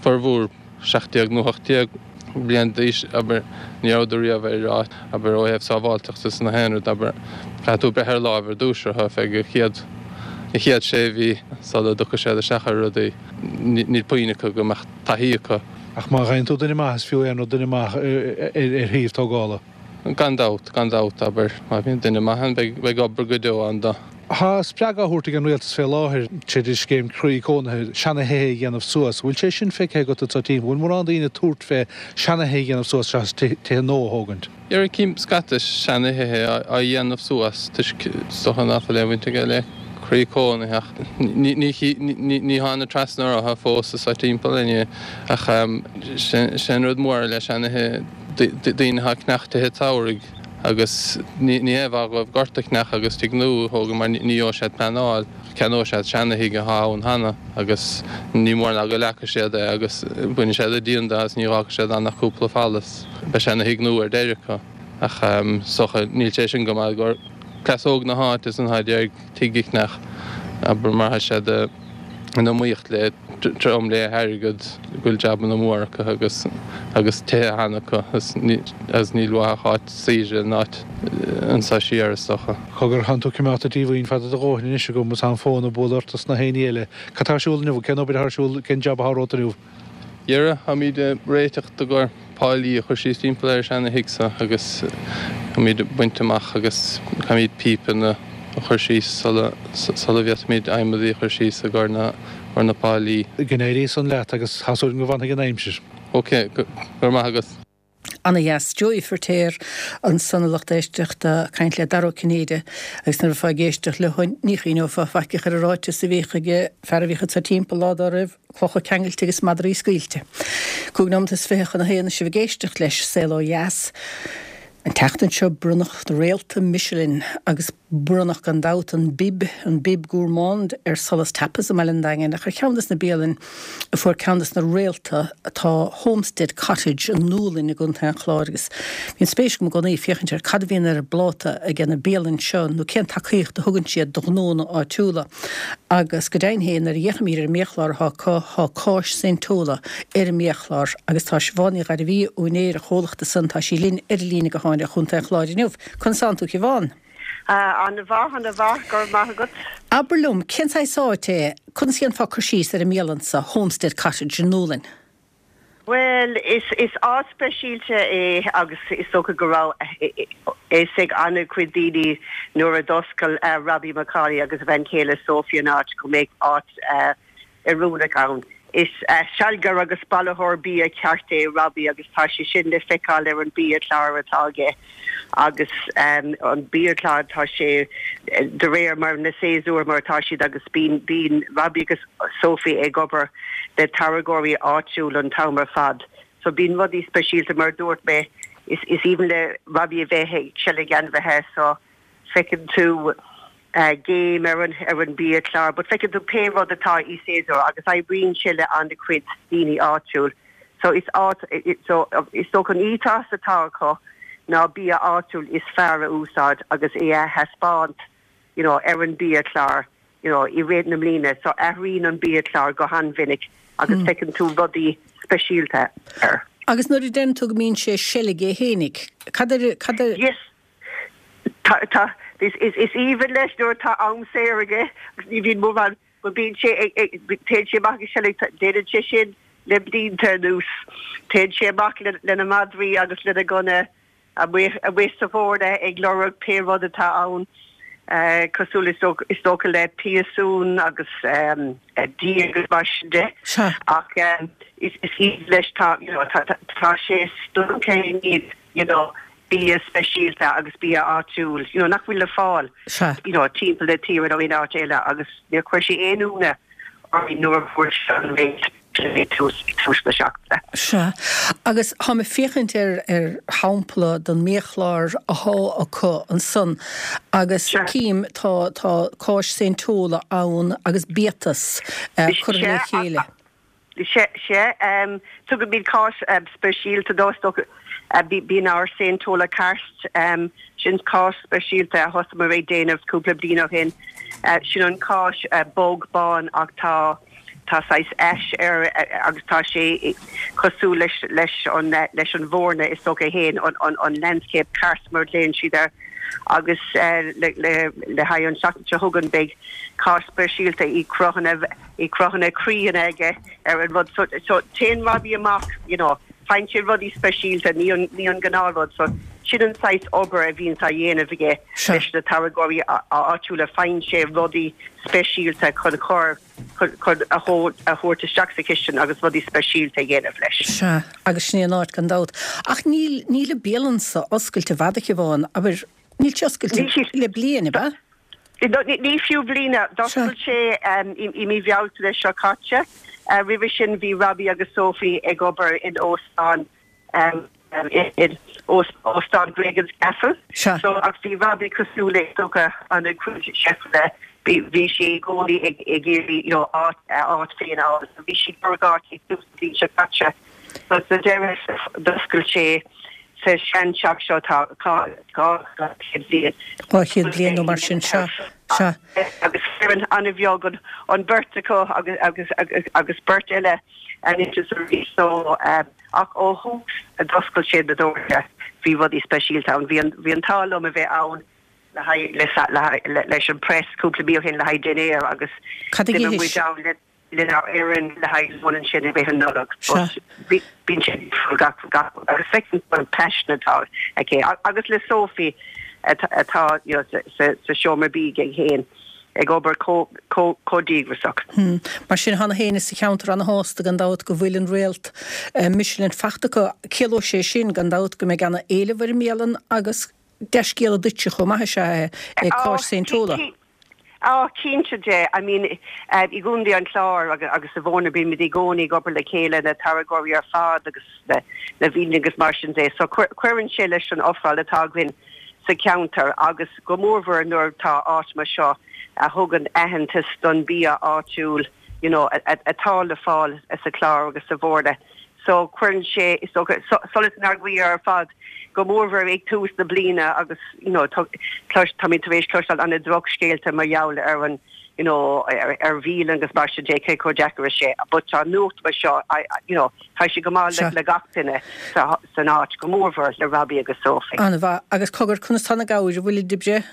formhór 17 nó 18 bliain d'aois, abair, ní rabhadar riamh ar áit, abair, ó thaobh sábháilteachta is nach aon rud, abair, caithfidh tú breith ar láimh ar dtús orthu feadh an chéad, an chéad sé mhí sula dtiocfaidh siad isteach ar rudaí. Níl puinn acu go mbeadh taithí acu. Ach má fhaigheann tú duine maith, is fiú aon rud duine maith ar thaobh tógála. Gan dabht, gan dabht, abair, má bhíonn duine maith ann, beidh obair go deo ann dó. Tá spreagadh á thabhairt ag an rialtas fé láthair tríd an scéim Croí Cónaithe seana-thithe a dhéanamh suas. Bhfuil sé sin feicthe agat anso timpeall? Bhfuil mórán daoine ag tabhairt fé seana-thithe a dhéanamh suas seachas tithe nua a thógaint? Dhera cím scata seana-thithe á dhéanamh suas toisc is dócha ná fuil aon bhaint aige le Croí Cónaithe ach ní tháinig trasna orthu fós anso timpeall inniu ach sé an rud mór le seana-thithe daoine atá ag ceannach tithe tsamhraidh agus ní haon mhaith dhóibh gort a cheannach agus tigh nua a thógáil mar ní gheobhaidh siad pleanáil, ceannóidh siad seana-thigh atá ann cheana agus ní mór ná go leagfaidh siad é agus bainfidh siad an díon de agus ní dh'fhágfaidh siad ann ach cúpla falla is beidh seana-thigh nua ar deireadh acu. Ach is dócha níl sé sin go maith do chleas óg na háite san atá ag iarraidh tigh a cheannach, abair mar tá siad in iomaíocht le trom le hairgead go bhfuil jabanna móra acu agus agus tithe cheana acu agus níl uathu ach áit saoire in áit anso siar is dócha. Cogar, tánn tú coimeádta díomhaoin fada do dhóthain anois agam is tá an fón ag bualadh ort is na haon ní eile. Cad tá ar siúl inniu? Cén obair atá ar siúl? Cén jab atá romhat inniu? Dhera, táimíd ag réiteach i gcomhair páilí a chur síos timpeall ar an seana-thigh so agus táimíd ag baint amach agus caithfimíd pípeanna a chur síos sula sula bhféadfaimíd adhmadaí a chur síos i gcomhair na gcomhair na páilí. Go n-éirí san leat agus tá súil agam go bhfanfaidh an aimsir. Ok, go raibh maith agat. Ana dheas. Joey Firtéar ansan a lucht éisteachta ag caint le Dara Ó Cinnéide agus nuair a bheifeá ag éisteacht leo ní chuimhneofá faic ar an ráiteas a bhíodh ag fear a bhíodh anso timpeall lá dá raibh, clocha ceangailte agus madraí scaoilte. 25 nóimeat chun a haon is sibh ag éisteacht leis, Saol Ó Dheas. An tseachtain seo bronnadh na réalta Michelin agus bronnadh gan dabht an Bib, an Bib Gourmand ar Solas Tapas i mBaile an Daingin ach ar cheann des na bialainn a fuair ceann des na réalta tá Homestead Cottage i nDúlainn i gContae an Chláir agus bíonn spéis agam i gcónaí féachaint ar cad a bhíonn ar an bpláta ag na bialainn seo nó cén tacaíocht a thugann siad do ghnónna áitiúla. Agus go deimhin féin, nuair a fhéachaimid ar an mbiachlár atá acu, tá cáis Saint Tola ar an mbiachlár agus tá Siobhán Ní Ghairbhí, úinéir an chomhlachta san, tá sí linn ar an líne gutháin ó Chontae an Chláir inniu. Conas tánn tú, a Shiobhán? An-mhaith, an-mhaith, go raibh maith agat. Abair liom, cén saghas áit é, conas a dhéanfá cur síos ar an mbialann seo, Homestead Cottage i nDúlainn? Bhuel, is áit speisialta é agus is dócha go raibh a fhios ag an-chuid daoine nuair a d'oscail Robbie McCauley agus a bhean chéile Sophie an áit go mbeadh áit oiriúnach ann. Is sealgaire agus bailitheoir bia ceart é Robbie agus tá sé sin le feiceáil ar an biachlár atá aige agus an biachlár tá sé de réir mar na séasúir mar atá siad agus bíonn bíonn Robbie agus Sophie ag obair le táirgeoirí áitiúil an t-am ar fad. So bíonn rudaí speisialta mar a dúirt mé is is aoibhinn le Robbie a bheith ag seilg ainmhithe so feiceann tú géim ar an ar an biachlár but feiceann tú pé rud atá i séasúr agus oibríonn sé le an-chuid daoine áitiúil. So is áit so is dócha an ethos atá acu ná bia áitiúil is fearr a úsáid agus é a thaispeáint you know ar an biachlár. you know, i rith na mbliana so athraíonn an biachlár go han-mhinic agus feiceann tú rudaí speisialta air. Agus nuair a deireann tú go mbíonn sé ag seilg é fhéinig, cad ar, cad ar. Yes. Tá, tá, Is aoibhinn leis nuair atá am saor aige agus ní bhíonn mórán but bíonn sé ag, téann sé amach ag seilg, déanann sé sin le blianta anuas. Téann sé amach lena madraí agus lena gunna amuigh, amuigh sa Bhoirne ag lorg pé rud atá ann, cosúil is dócha le piasún agus dí agus mar sin de. Ach is aoibhinn leis, tá, you know, tá sé stiúgtha i ndiaidh, you know, bia speisialta agus bia áitiúil, you know, nach bhfuil le fáil, you know, timpeall na tíre nó in áit eile agus níor chuir sé aon ionadh orainn nuair a fuair sé an réalt ag tús, ag tús na seachtaine. Sea. Agus táim ag féachaint ar, ar shampla den mbiachlár athá acu ansan agus cím, tá, tá cáis Saint Tola ann agus biatas curtha le chéile. Sea, sea. Tugaimid cáis speisialta dó, is dócha. Bíonn ár Saint Tola Karst, sin cáis speisialta a thosaíomar ag déanamh cúpla bliain ó shin. Sin an cáis bog bán ach tá tá saghas ash air agus tá sé cosúil leis leis an leis an Bhoirne is dócha féin, an an landscape karst mar a ghlaonn siad air. Agus le le le haghaidh an tseachtain seo chugainn beidh cáis speisialta i gcruthanna i gcruthanna croíonna aige ar an rud so so téann Robbie amach you know faigheann sé rudaí speisialta ní an ní an gnáthrud so sin an saghas obair a bhíonns á dhéanamh aige leis na táirgeoirí áitiúla faigheann sé rudaí speisialta chun chur chun chun a a thabhairt isteach sa chistin agus rudaí speisialta a dhéanamh leis. Sea, agus sin é an áit gan dabht. Ach níl níl an bialann so oscailte i bhfad a Shiobhán, abair níl sé oscailte le bliain, ab ea? Ní fiú bliain. D'oscail sé i mí Bhealtaine seo caite. Roimhe sin bhí Robbie agus Sophie ag obair in óstán in Óstán Gregans Castle. So ach bhí Robbie cosúil le is dócha an-chuid cheifanna bhí sé i gcónaí ag iarraidh you know áit a áit féin a fháil. So bhí sé ag lorg áit ag tús na bliana seo caite. So sa deireadh d'oscail sé sa seanteach seo atá 200 bliain. 200 bliain nó mar sin, sea, sea. Agus foireann an-bheag an bheirt acu agus agus beirt eile anois is arís so ach ó thús a d'oscail siad na doirse bhí rudaí speisialta ann. Bhí an bhí an t-ádh liom a bheith ann le haghaidh leis an press cúpla mí ó shin le haghaidh dinnéar agus d'imigh muid ann le lenár bhfoireann le haghaidh lón ansin i rith an Nollag. But bíonn sé difriúil gach gach agus feiceann tú an paisean atá aici agus le Sophie atá you know sa sa seomra bídh aige féin ag obair chomh chomh chomh díograiseach. Mar sin tá na héinne sa cheantar ana-shásta gan dabht go bhfuil an réalt Michelin fachta acu. Ciallóidh sé sin gan dabht go mbeidh ana-éileamh ar an mbialann agus dea-scéala duitse chomh maith is ea é cáis Saint Tola. Á, cinnte de. I mean, i gContae an Chláir agus sa Bhoirne bímid i gcónaí ag obair le chéile, na táirgeoirí ar fad agus na bialanna agus mar sin de. So cuireann sé leis an ofráil atá againn sa cheantar agus go mórmhór nuair atá áit mar seo a thugann aitheantas don bia áitiúil, you know, atá le fáil sa Chlár agus sa Bhoirne. So cuireann sé, is dócha, solas inár gcroí ar fad, go mórmhór ag tús na bliana agus, you know, táimid tar éis cloisteáil an-drochscéalta mar gheall ar an, you know, ar bhialanna agus mar sin de, cé chomh deacair is sé. But tá nuacht mar seo, you know, tá sé go maith le gach duine san áit, go mórmhór le Robbie agus Sophie. An-mhaith. Agus cogar, conas tá na gabhair, an bhfuilid ag breith?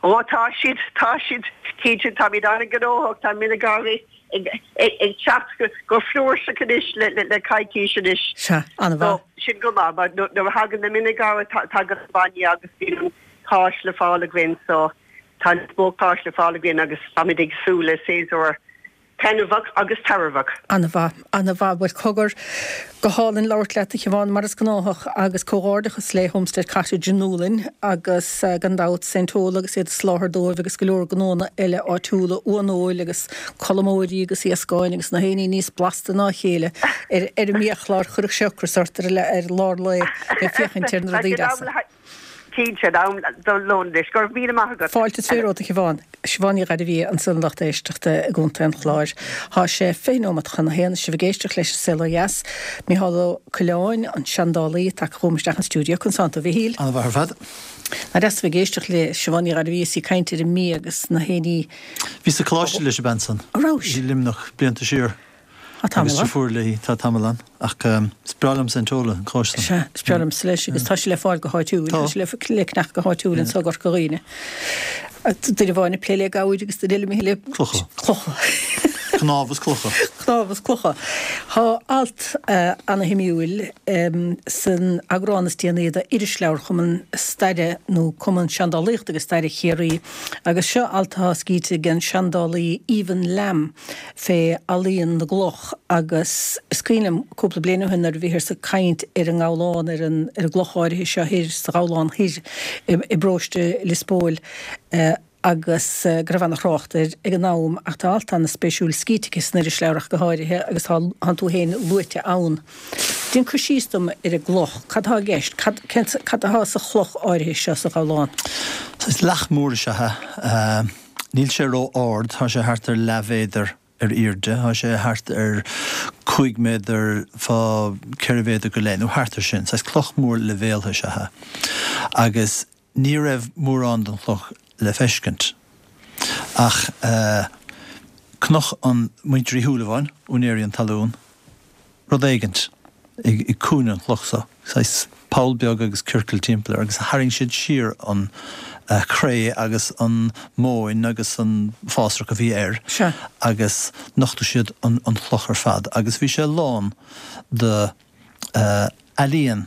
Ó tá siad, tá siad, cinnte, táimid an-ghnóthach, tá mionagarbhaí ag teacht go flúirseach anois le coicís anois. Sea, an-mhaith. So, sin go maith, mar nuair a thagann na mionagarbha tagann an bainne agus bíonn an cáis le fáil againn, so tá níos mó cáis le fáil againn agus táimid ag súil le séasúr Taitneamhach agus tairbheach. An-mhaith, an-mhaith. Bhuel, cogar, go hálainn labhairt leat, a Shiobhán, mar is gnáthach, agus comhghairdeachas le Homestead Cottage i nDúlainn agus, gan dabht, Saint Tola agus iad ag soláthar dóibh agus go leor gnónna eile áitiúla, uan-fheoil agus colmóirí agus iascáin agus na haon ní níos blasta ná a chéile ar ar an mbiachlár. Chuirfeadh sé ocras ort ar ar lár lae ag féachaint ar na rudaí deasa. Cinnte, am don lón anois. Go raibh míle maith agat. Fáilte is romhat, a Shiobhán. Siobhán Ní Ghairbhia ansan a lucht éisteachta i gContae an Chláir. Tá sé 20 nóimeat chun a haon is sibh ag éisteacht leis an Saol Ó Dheas. Micheál Ó Coileáin, an seandálaí, tagtha chugam isteach an stiúideo. Conas tánn tú, a Mhichíl? An-mhaith ar fad. Nach deas a bheith ag éisteacht le Siobhán Ní Ghairbhia is í ag caint ar an mbia agus na héiní. Bhíos sa choláiste leis an bhean san. An rabhais? I Luimneach, blianta siar. Tá tamall Agus ann. deirfiúr léi, tá tamall ann. Ach is breá liomsa an t-ól, an cóiste. Sea, is breá liomsa leis agus tá sé le fáil go háitiúil. Tá. Tá sé le ceannach go háitiúil anseo i gCorca Dhuibhne. Duine amháin ag plé le gabhair agus duine eile imithe le. Clocha. Clocha. Cnámh is clocha. Cnámh is clocha. Tá alt ana-shuimiúil san eagrán is déanaí de Irisleabhar Chumann Staire nó Cumann Seandálaíochta agus Staire Chiarraí agus seo alt atá scríte ag an seandálaí Aoibheann Lamb fé ealaíon na gcloch agus is cuimhin liom cúpla bliain ó shin nuair a bhíothas ag caint ar an nGabhlán, ar an ar an gcloch áirithe seo thoir sa Ghabhlán Thoir i bparóiste Lios Póil agus go raibh ana-thrácht air ag an am ach tá alt ana-spéisiúil scríte aici san irisleabhar ach go háirithe agus tá tánn tú féin luaite ann. Déan cur síos dom ar an gcloch, cad atá i gceist, cad cén cad atá sa chloch áirithe seo sa Ghabhlán? Saghas leac mór is ea é. Níl sé ró-ard, tá sé thart ar leathmhéadar ar airde, tá sé thart ar 5 méadar fá 4 mhéadar go leith, nó thart ar sin. Saghas cloch mór leibhéaltha is ea é. Agus ní raibh mórán den chloch le feiscint. Ach chonaic an muintir Uí Shúilleabháin, úinéirí an talún, rud éigint i gcúinne an chloch so, saghas poll beag agus ciorcal timpeall air, agus tharraing siad siar an chré agus an mhóin agus an fásrach a bhí air agus nochtadh siad an chloch ar fad agus bhí sé lán de ealaíon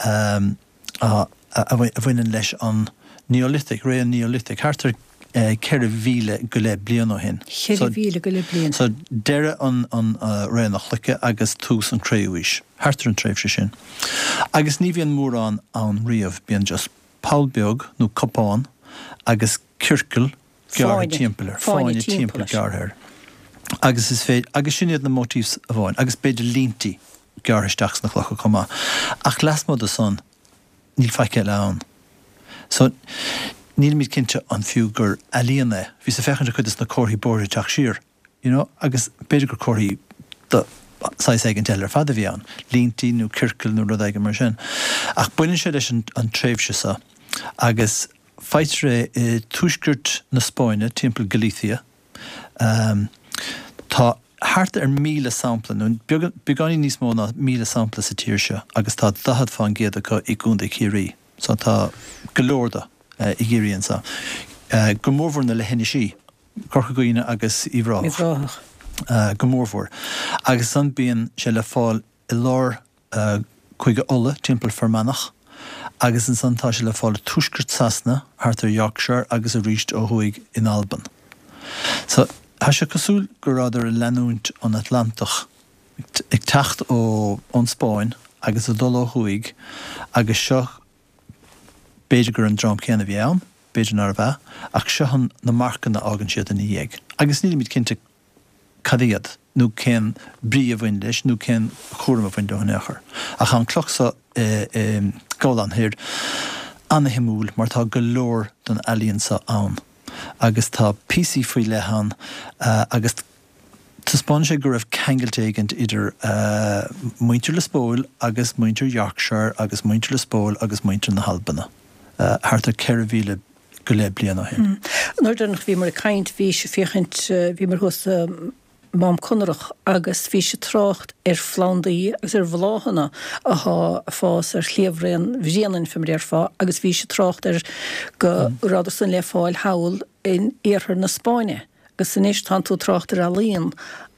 a bhaineann leis an Neolithic, ré an Neolithic, thart ar 4,000 go leith bliain ó shin. 4,000 go leith bliain. So, deireadh an ré na cloiche agus tús an cré-umhaois, thart ar an tréimhse sin. Agus ní bhíonn mórán ann riamh, bíonn just poll beag nó cupán agus ciorcal gearrtha timpeall air, fáinne timpeall gearrtha air. Agus is féidir, agus sin iad na motifs amháin, agus b'fhéidir líntí gearrtha isteach sna clocha chomh maith. Ach lasmuigh de san, níl faic eile ann. So, nílimid cinnte an fiú gur ealaíon é. Bhíos ag féachaint ar chuid de na comharthaí bóithre ag teacht siar, you know, agus b'fhéidir gur comharthaí de saghas éigint eile ar fad a bhí ann, líntí nó ciorcail nó rud éigin mar sin. Ach baineann sé leis an tréimhse seo agus faightear é i tuaisceart na Spáinne, timpeall Galicia. Tá thart ar 1,000 sampla, nó beagáinín níos mó ná 1,000 sampla sa tír seo agus tá 40 fán gcéad acu i gContae Chiarraí. So tá go leor de i gCiarraí anseo. Go mórmhór na leithinisí, Corca Dhuibhne agus Uíbh Ráthach. Go mórmhór. Agus ansan bíonn sé le fáil i lár Cúige Uladh, timpeall Fear Manach, agus ansan tá sé le fáil i tuaisceart Sasana, thart ar Yorkshire agus arís ó thuaidh in Albain. So, tá sé cosúil go rabhadar ag leanúint an Atlantach, ag teacht ó ón Spáinn agus ag dul ó thuaidh agus seo, b'fhéidir gur an dream céanna a bhí ann, b'fhéidir nárbh ea, ach seo an na marcanna a fhágann siad ina dhiaidh. Agus nílimid cinnte cad iad, nó cén brí a bhain leis, nó cén cúram a bhain leo in aon chor. Ach tá an cloch so i nGabhlán Thoir ana-shuimiúil mar tá go leor den ealaíon so ann agus tá píosaí faoi leith ann agus taispeánann sé go raibh ceangailt éigint idir muintir Lios Póil agus muintir Yorkshire agus muintir Lios Póil agus muintir na hAlbana thart ar 4,000 go leith bliain ó shin. An uair deireanach a bhíomar ag caint bhís ag féachaint, bhíomar thuas i Mám Conrach agus bhís ag trácht ar phlandaí agus ar bhláthanna athá ag fás ar shliabhraon Bhréanainn fé mar a déarfá agus bhís ag trácht ar go rabhadar san le fáil thall in iarthar na Spáinne agus anois tánn tú ag trácht ar ealaíon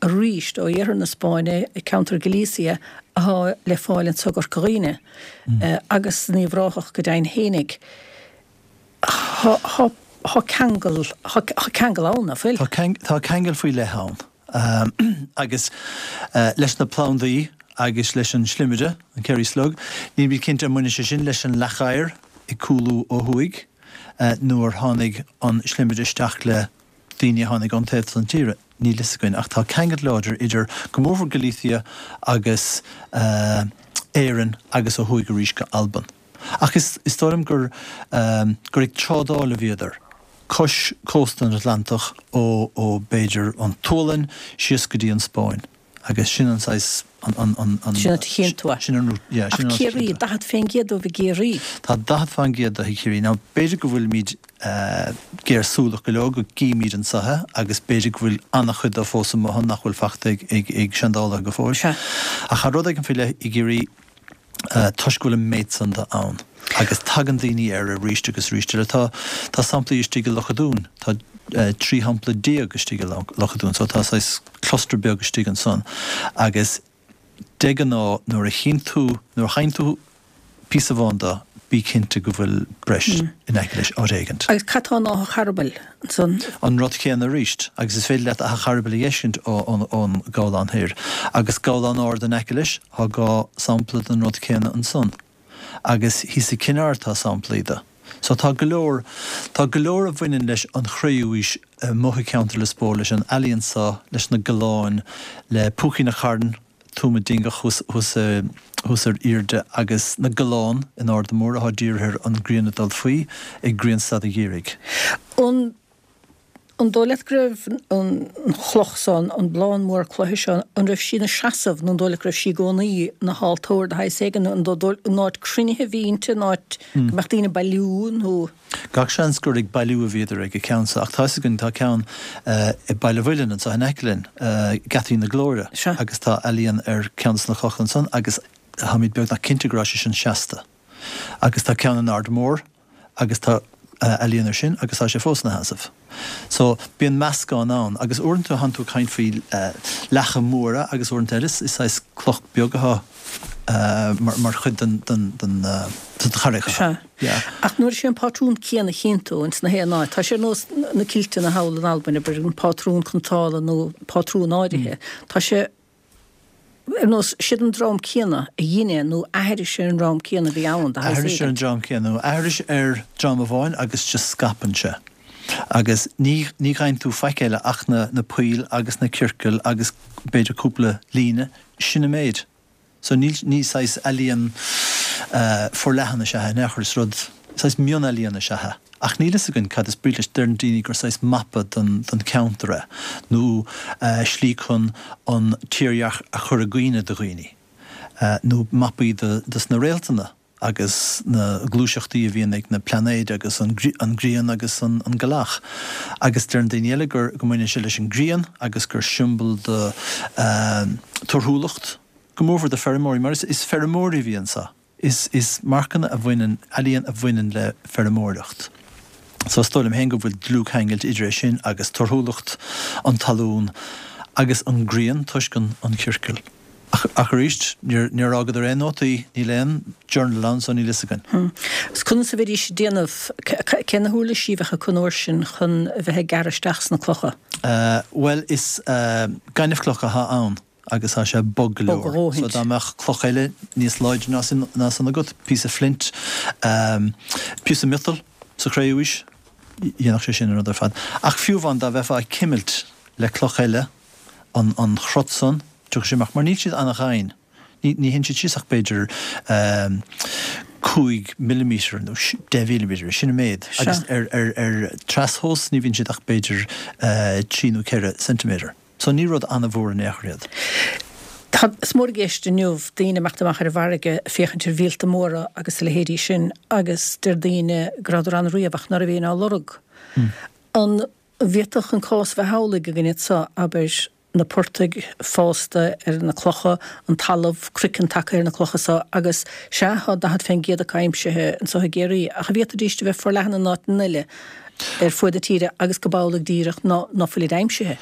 arís ó iarthar na Spáinne, ceantar Galicia athá le fáil anso i gCorca Dhuibhne agus in Uíbh Ráthach go deimhin fhéinig. Tá ceangal, tá ceangal ann, nach bhfuil? Tá ceangal faoi leith ann. Agus leis na plandaí agus leis an slimire, an Kerry Slug, nílimid cinnte an mbaineann sé sin leis an leac oighir ag cúlú ó thuaidh nó ar tháinig an slimire isteach le daoine a tháinig ón taobh san tíre, níl fhios againn. Ach tá ceangal láidir idir, go mórmhór Galicia agus Éirinn agus ó thuaidh arís go Albain. Ach is dóigh liom gur gur ag trádáil a bhíodar, cois cósta an Atlantach ó ó b'fhéidir an tSualainn síos go dtí an Spáinn. Agus sin an saghas, an, an, an, an. Sin an áit a chíonn tú é. Sin an, yeah, sin an Ach Ciarraí, 40% dóibh i gCiarraí. Tá 40% de i gCiarraí. Now, b'fhéidir go bhfuilimid géarshúileach go leor go gcímid anso é agus b'fhéidir go bhfuil an-chuid de fós amuigh ann nach bhfuil fachta ag, ag, ag seandálaithe go fóill. Sea. Ach tá rud éigin faoi leith i gCiarraí toisc go bhfuil an méid san de ann agus tagann daoine air arís agus arís eile. Tá, tá samplaí istigh i Loch a' Dúin, tá 13 shampla istigh i Loch a' Dúin so tá saghas cluster beag istigh ansan agus de ghnáth nuair a chíonn tú, nuair a fhaigheann tú píosa amháin de, bí cinnte go bhfuil breis in aice leis áit éigint. Agus cad tá in Áth an Charbaill ansan? An rud céanna arís, agus is féidir leat Áth an Charbaill a dh'fheiscint ón gCabhlán Thoir. Agus Gabhlán Ard in aice leis, thá 2 sampla den rud céanna ansan. Agus thíos i gCinn Aird tá samplaí de. So tá go leor, tá go leor a bhaineann leis an Chré-Umhaois amuigh i gceantar Lios Póil, leis an ealaíon so, leis na gabhláin, le Púicín a' Chairn, Tuama Dingeach thuas, thuas, thuas ar aoirde agus na gabhláin in Arda Mór athá dírithe ar an ngrian ag dul faoi ag grianstad an gheimhridh. An An dóigh leat go raibh an chloch seo, an blán mór cloiche seo, an raibh sí ina seasamh nó an dóigh leat go raibh sí i gcónaí ina haltóir de shaghas éigin? An an áit cruinnithe a bhí inti, an áit go mbeadh daoine ag bailiú nó? Gach seans gur ag bailiú a bhíodar ag an ceann seo ach tá fhios againn tá ceann i Baile Mhuilinn anseo in aice linn, Geataí na Glóire, agus tá ealaíon ar ceann de na clocha ansan agus táimid beagnach cinnte go raibh sé sin seasta. Agus tá ceann in Ard Mór agus tá ealaíon ar sin agus tá sé fós ina sheasamh. So, bíonn meascán ann agus uaireanta tánn tú ag caint faoi leacha móra agus uaireanta eile is saghas cloch beag atá mar chuid den den den charraig. Sea. Yeah. Ach nuair is é an pátrún céanna a chíonn tú ins na haon áit, tá sé ar nós na kilteanna thall in Albain, abair, an pátrún cniotála nó pátrún áirithe, tá sé Ar nós, siad an dream céanna a dhein é nó aithris ar an dream céanna a bhí ann, de shaghas Aithris ar an éigint. dream céanna nó aithris ar dream amháin agus just scaipeann sé. Agus ní, ní gheibheann tú faic eile ach na, na poill agus na ciorcail agus b'fhéidir cúpla líne, sin an méid. So níl, ní saghas ealaíon forleathan is ea é in aon chor, is rud, saghas mionealaíon is ea é. Ach níl fhios againn cad is brí leis. Deireann daoine gur saghas mapa don cheantar é, nó slí chun an tírdhreach a chur i gcuimhne do dhaoine, nó mapaí dos na réaltanna agus na gluaiseachtaí a bhíonn ag na plainéid agus an ghrian agus an ghealach. Agus deireann daoine eile gur go mbaineann sé leis an ghrian agus gur siombail do torthúlacht, go mórmhór do feirmeoirí, mar is feirmeoirí a bhí anso. Is is marcanna a bhaineann, ealaíon a bhaineann le feirmeoireacht. So is dóigh liom féin go bhfuil dlúthcheangailt idir é sin agus torthúlacht an talún agus an ghrian toisc an an chiorcail. Ach ach arís, níor níor fhágadar aon nótaí, níl aon journal ann so níl fhios againn. Agus conas a bheidís ag déanamh, cé na huirlisí a bheadh acu an uair sin chun a bheith ag gearradh isteach sna clocha? Bhuel is gaineamhchloch atá ann. agus tá sé bog go Bog a leor. dhóthaint. So dá mbeadh cloch eile níos láidre ná sin, ná san agat, píosa flint, píosa miotail sa chré-umhaois, dhéanfadh sé sin an rud ar fad. Ach fiú amháin dá mbeifeá ag cimilt le cloch eile an, an chrot san, tiocfaidh sé amach, mar níl siad ana-dhoimhin. Ní, ní théann siad síos ach b'fhéidir 5 millimetre nó 10 mhillimetre, sin an méid. Sea. Agus ar, ar, ar trastomhas ní bhíonn siad ach b'fhéidir 3 nó 4 ceintiméadar. So ní rud an-mhór in aon chor iad. Tá, is mór i gceist inniu daoine imeacht amach ar an bhfarraige ag féachaint ar mhíolta móra agus a leithéidí sin agus deir daoine go rabhadar ann riamh ach ná raibh éinne á lorg. An bhféadfadh an cás a bheith amhlaidh againn anso, abair, na portaigh fásta ar na clocha, an talamh, craiceann tagtha ar na clocha so agus, sea, tá 40% acu aimsithe anso i gCiarraí ach an bhféadfaidís a bheith forleathan in áiteanna eile? ar fuaid na tíre agus go b'amhlaidh díreach ná ná fuilid aimsithe.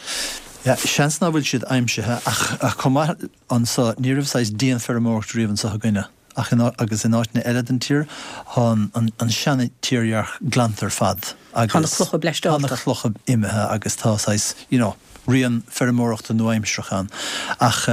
Yeah, seans ná fuil siad aimsithe ach ach chomh maith anso ní raibh saghas dianfheirmeoireacht riamh anso againne ach in agus in áiteanna eile den tír thá an an an seana-tírdhreach glanta ar fad Tá na agus clocha tá na bleaisteálta. clocha imithe agus tá saghas you know rian feirmeoireachta nua-aimsearach ann ach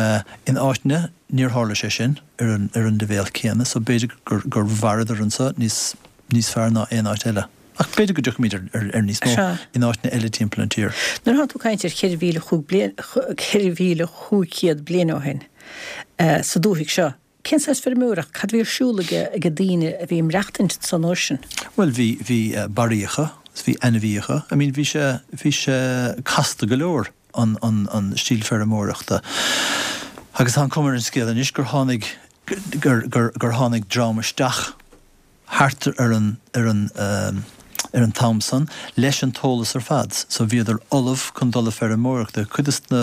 in áiteanna níor tharla sé sin ar an ar an leibhéal céanna so b'fhéidir gur gur mhaireadar anso níos níos fearr ná aon áit eile. Ach b'fhéidir go dtiocfaimid ar níos mó in áiteanna eile timpeall an tír. Nuair atá tú ag caint ar 4,500 bliain ó shin sa dúthaigh seo, cén saghas feirmeoireacht, cad a bhí ar siúl ag daoine a bhí ag maireachtaint ansan uair sin? Bhuel, bhí, bhí barraíocha, is bhí ainmhíocha. I mean, bhí sé, bhí sé casta go leor, an, an, an stíl feirmeoireachta. Agus tá an cuma ar an scéal anois gur tháinig, gur, gur, gur tháinig dream isteach thart ar an, ar an, ar an t-am san leis an t-eolas ar fad. So bhíodar ullamh chun dul a feirmeoireachta. Cuid de na,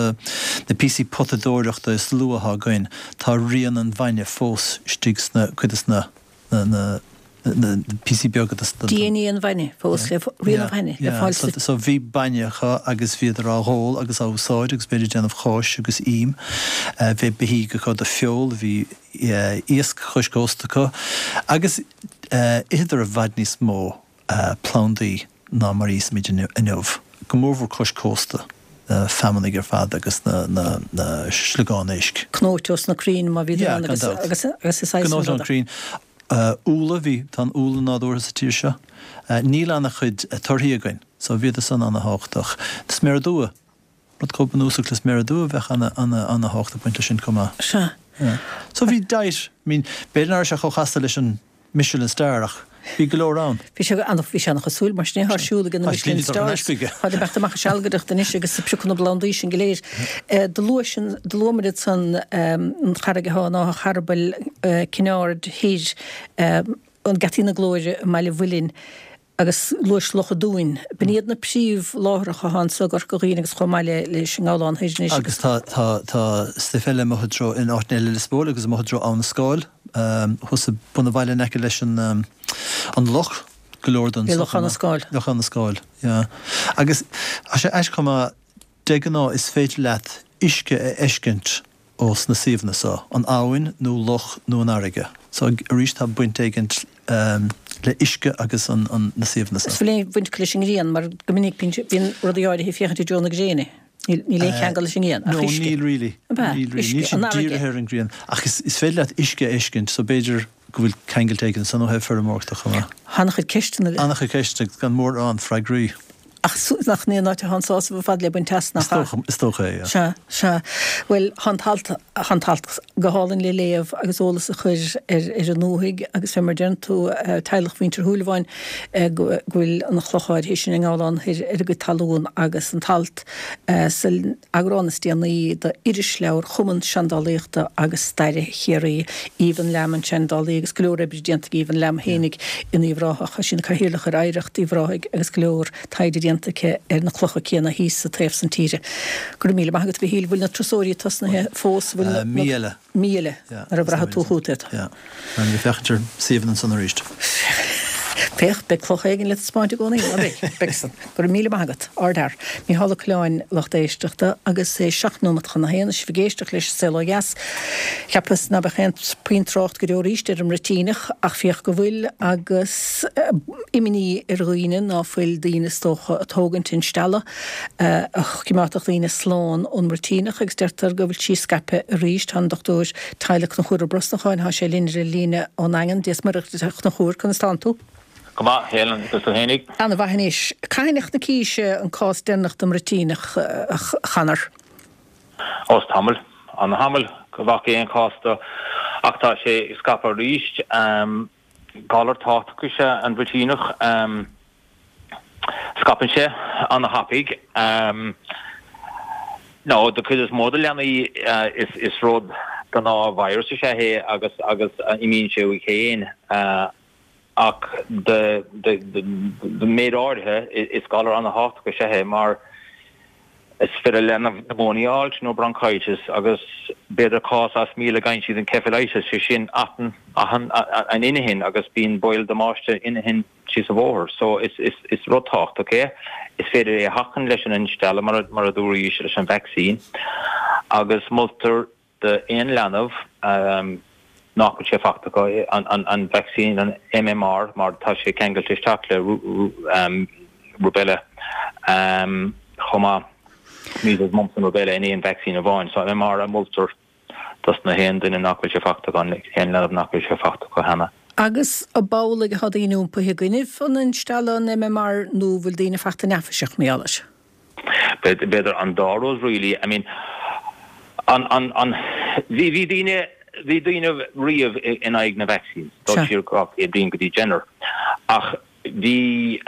na píosaí potadóireachta is luaithe atá againn, tá rian an bhainne fós istigh sna, cuid de na, na, na, na píosaí beaga de na. DNA an bhainne fós le, rian an bhainne le fáil sa. So bhí bainne acu agus bhíodar á dh'ól agus á úsáid agus b'fhéidir déanamh cáis agus ím. Bhí beithígh acu do feoil, bhí iasc cois cósta acu agus itheadar i bhfad níos mó plandaí ná mar a íosaimid inniu, go mórmhór cois cósta, na feamanaigh ar fad agus na sliogáin éisc. Cnóite ós na crainn má bhíodar ann agus agus is saghas Cnóite ón crainn. Úlla, bhí, tá an úlla nádúrtha sa tír seo. Níl ana-chuid torthaí againn, so bhíodar san ana-thábhachtach. Sméara dubha, rud chomh bunúsach le sméara dubha bheadh ana, ana, ana-thábhacht ag baint leis sin chomh maith. Sea. Yeah. So bhí diet, I mean, b'fhéidir nach raibh sé chomh chasta leis an Michelin Star ach bhí go leor ann. Bhí sé ana, bhí sé ana-chosúil mar sin é, tá siúl ag na Michelin Stars. Tá ag teacht amach ag sealgaireacht anois agus ag piocadh na bplandaí sin go léir. Do luaigh sin, do luamar ansan an charraig atá in Áth an Charbaill, Cinn Aird Thoir, an Geataí na Glóire i mBaile Mhuilinn, agus luais Loch an Dúin. B'in iad na príomhláithreacha atá anso i gCorca Dhuibhne agus chomh maith le leis an nGabhlán Thoir anois. Agus tá, tá, tá stuif eile amuigh i dtreo, in áiteanna eile i Lios Póil agus amuigh i dtreo Abha na Scáil, thuas i bun an bhaile in aice leis an, an loch, go leor den I Loch Abha na Scáil. Loch Abha na Scáil, yeah. Agus tá sé aisteach chomh maith, de ghnáth is féidir leat uisce a fheiscint ó sna suíomhanna so, an abhainn nó loch nó an fharraige. So arís tá baint éigint le uisce agus an na suíomhanna so. Is bhfuil aon bhaint acu leis an ngrian mar go minic bíonn rudaí áirithe ag féachaint i dtreo na gréine. Níl aon cheangal leis an ngrian ach uisce. No, níl really. Ab ea? Níl really. Níl siad dírithe ar an ngrian. Ach is féidir leat uisce a fheiscint so b'fhéidir go bhfuil ceangailt éigin ansan ó thaobh feirmeoireachta chomh maith. An-chuid ceisteanna. An-chuid ceisteanna agus gan mórán freagraí. Ach nach in é an áit atá an sásamh ar fad le baint as, nach ea? Is dócha é, yeah. Sea, sea. Bhuel, tá an t-alt, tá an t-alt go hálainn le léamh agus eolas a chur ar, ar an ndúthaigh agus fé mar a deireann tú, teaghlach mhuintir Shúilleabháin, go bhfuil an chloch áirithe sin i nGabhlán Thoir ar a gcuid talún agus an t-alt san eagrán is déanaí d'Irisleabhar Chumann Seandálaíochta agus Staire Chiarraí. Aoibheann Lamb an seandálaí agus go leor oibre déanta ag Aoibheann Lamb fhéinig in Uíbh Ráthach. Tá sí ina cathaoirleach ar Oidhreacht Uíbh Ráthaigh agus go leor taighde déanta aici ar na clocha céanna thíos sa taobh san tíre. Go raibh míle maith agat a Mhichíl. Bhfuil na turasóirí tosnaithe fós? Bhfuil na. Mí eile. Mí eile nuair a bhraithfidh tú chugat iad. Yeah. Beidh mé ag féachaint ar suíomhanna ansan arís. Féach, beidh cloch éigin le taispeáint i gcónaí, ná beidh? Beidh san. Go raibh míle maith agat. Ardfhear. Mícheál Ó Coileáin, lucht éisteachta, agus é 7 nóimeat chun a haon, is sibh ag éisteacht leis An Saol Ó Dheas. Cheapas ná beadh aon puinn trácht go deo arís ar an mbruitíneach, ach féach go bhfuil, agus imní ar dhaoine ná fuil daoine is dócha ag tógaint instealladh. a choimeádfadh daoine slán ón mbruitíneach agus deirtear go bhfuil sí scaipthe arís. Tá an Dr Tyler Conchúr Ó Brosnacháin, tá sé linn ar an líne ón nDaingean. Dia is Muire duit a Chonchúir, conas tánn tú? Go maith, Helen, agus tú fhéinig? Ana mhaith anois. Cathain a chonacís an cás deireanach den mbruitíneach, a Chonor? Ó, is tamall, ana thamall go bhfaca aon chás de ach tá sé ag scaipeadh arís. Galar tábhachtach is ea an bhruitíneach. Scaipeann sé ana-thapaidh. Nó do chuid is mó de leanaí is rud gnáth-virus is ea é agus agus imíonn sé uaidh féin. Ach do méid áirithe is galar ana-thábhachtach is ea é mar is féidir le leanbh pneumonia a fháilt nó bronchitis agus b'fhéidir cás as 1,000 go bhfaigheann siad encephalitis, sé sin atán an inchinn agus bíonn baol damáiste inchinn síos an bhóthar. So is is rud tábhachtach é. Is féidir é a sheachaint leis an instealladh mar mar a dúraís leis an vaccine agus moltar d'aon leanbh nach bhfuil sé fachta acu an vaccine an MMR mar tá sé ceangailte isteach le rubella chomh maith, measles, mumps and rubella in aon vaccine amháin. So MMR a moltar dos na haon duine nach bhfuil sé fachta acu, aon leanbh nach bhfuil sé fachta acu cheana. Agus ab amhlaidh atá daoine iompaithe i gcoinnibh an instealladh an MMR nó bhfuil daoine fachta neafaiseach mar gheall air? B'fhéidir an dá rud really. I mean an, an, an, bhí, bhí daoine, bhí daoine riamh in aghaidh na vaccines, dul siar 200 bliain go dtí Jenner. Ach bhí,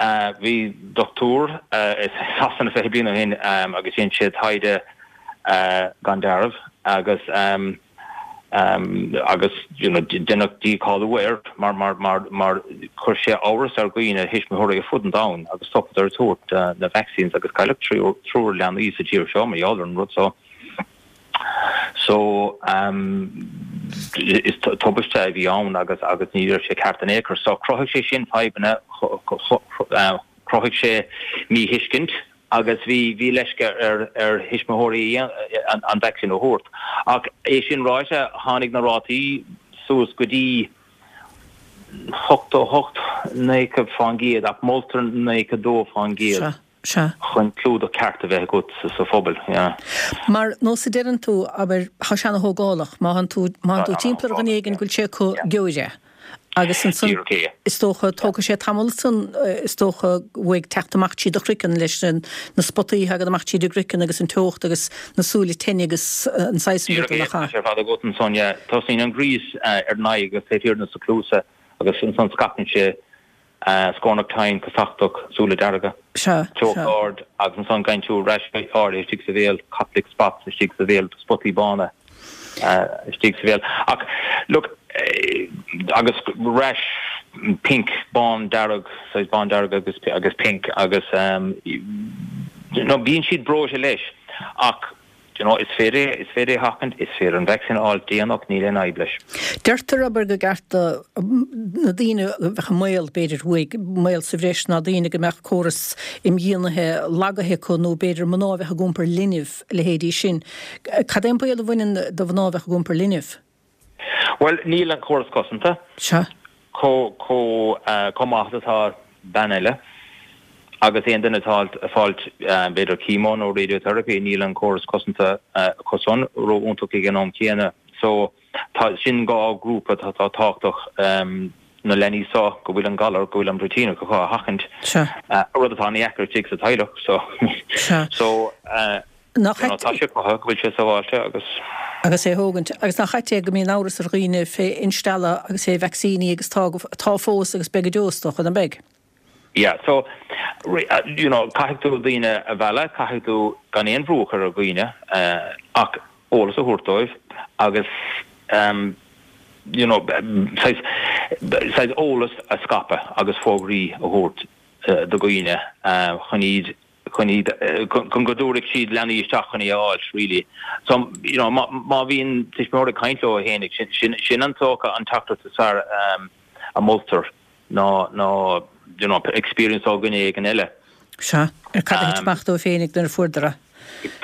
bhí dochtúir i Sasana 20 bliain ó shin agus dhein sé taighde gan dealramh. agus agus you know deineadh dícháiliú air mar mar mar mar chuir sé amhras ar dhaoine, thuismitheoirí ar fud an domhain agus stopadar ag tabhairt na vaccines agus cailleadh triúr leanaí sa tír seo mar gheall ar an rud so. So is tubaiste a bhí ann agus agus ní raibh sé ceart in aon chor. So chruthaigh sé sin fadhbanna, chruthaigh sé míthuiscint agus bhí bhí leisce ar ar thuismitheoirí an vacsaín a thabhairt. Ach é sin ráite, tháinig na rátaí suas go dtí 88, 90% ach moltar 92%. Sea. chun clúdach ceart a bheith agat sa phobal, yeah. Mar nós a deireann tú, abair, tá sé ana-thógálach, má thánn tú, má thánn tú timpeall ar dhuine éigin go bhfuil sé acu, gheobhair é. Agus ansan, Díreach é. is dócha, tógfaidh sé tamall ansan, is dócha, uaidh teacht amach tríd do chraiceann leis na, na spotaí a thagann amach tríd an gcraiceann agus an teocht agus na súile teinne agus an saghas san ruda, Díreach é, nach tá ea? sé ar fad agat ansan, yeah. Tosaíonn an gríos ar an aghaidh agus taobh thiar de na cluasa agus ansan scaipeann sé Scornach tinn, casachtach, súile dearga. Sea, Teocht sea. ard agus ansan gheibheann tú rash áirithe istigh sa bhéal, Koplik spots istigh sa bhéal, spotaí bána istigh sa bhéal. Ach look, agus rash pink, bán dearg, saghas bán dearg agus agus pink agus you know bíonn siad breoite leis ach Do you know, is féidir é, is féidir é a sheachaint, is féidir an vacsaín a fháil déanach, níl aon fhadhb leis. Deirtear, abair, gur ceart do na daoine a bheadh i mbaol, b'fhéidir, uaidh, i mbaol sa bhreis ná daoine go mbeadh córas imdhíonaithe lagaithe acu nó b'fhéidir mná a bheadh ag iompar linbh, a leithéidí sin. Cad é an baol a bhaineann do mhná a bheadh ag iompar linbh? Bhuel, níl an córas cosanta Sea. chomh, chomh, chomh maith is atá bean eile agus aon duine atá ag fáilt b'fhéidir chemo nó radiotherapy, níl an córas cosanta acu san ró-iontach ag an am céanna. So, tá, sin dhá ghrúpa atá tábhachtach, na leanaí seo go bhfuil an galar, go bhfuil an bruitíneach acu a sheachaint, Sea. rud atá ana-dheacair istigh sa teaghlach. So, Sea. so, Nach ait. Tá sé cruthaithe go bhfuil sé sábháilte agus. Agus é a thógaint. Agus nach ait é go mbíonn amhras ar dhaoine fé instealladh agus fé vacsaíní agus tá, tá fós agus beidh go deo is dócha, nach mbeidh? Yeah, so, you know, caithfidh tú daoine a mhealladh, caithfidh tú gan aon bhrú a chur ar dhaoine ach eolas a thabhairt dóibh agus you know, saghas, saghas eolas a scaipeadh agus fógraí a thabhairt do dhaoine chun iad chun iad, chun go dtabharfaidh siad leanaí isteach chun é a fháilt really. So, you know, má, má bhíonn tuismitheoir ag caint leo fhéinig, sin, sin, sin an dócha an teachtaireacht is fearr a moltar ná, ná, you know, experience ó dhuine éigin eile. Sea, ar cad a thit amach dóibh féinig nuair a fuaireadar é.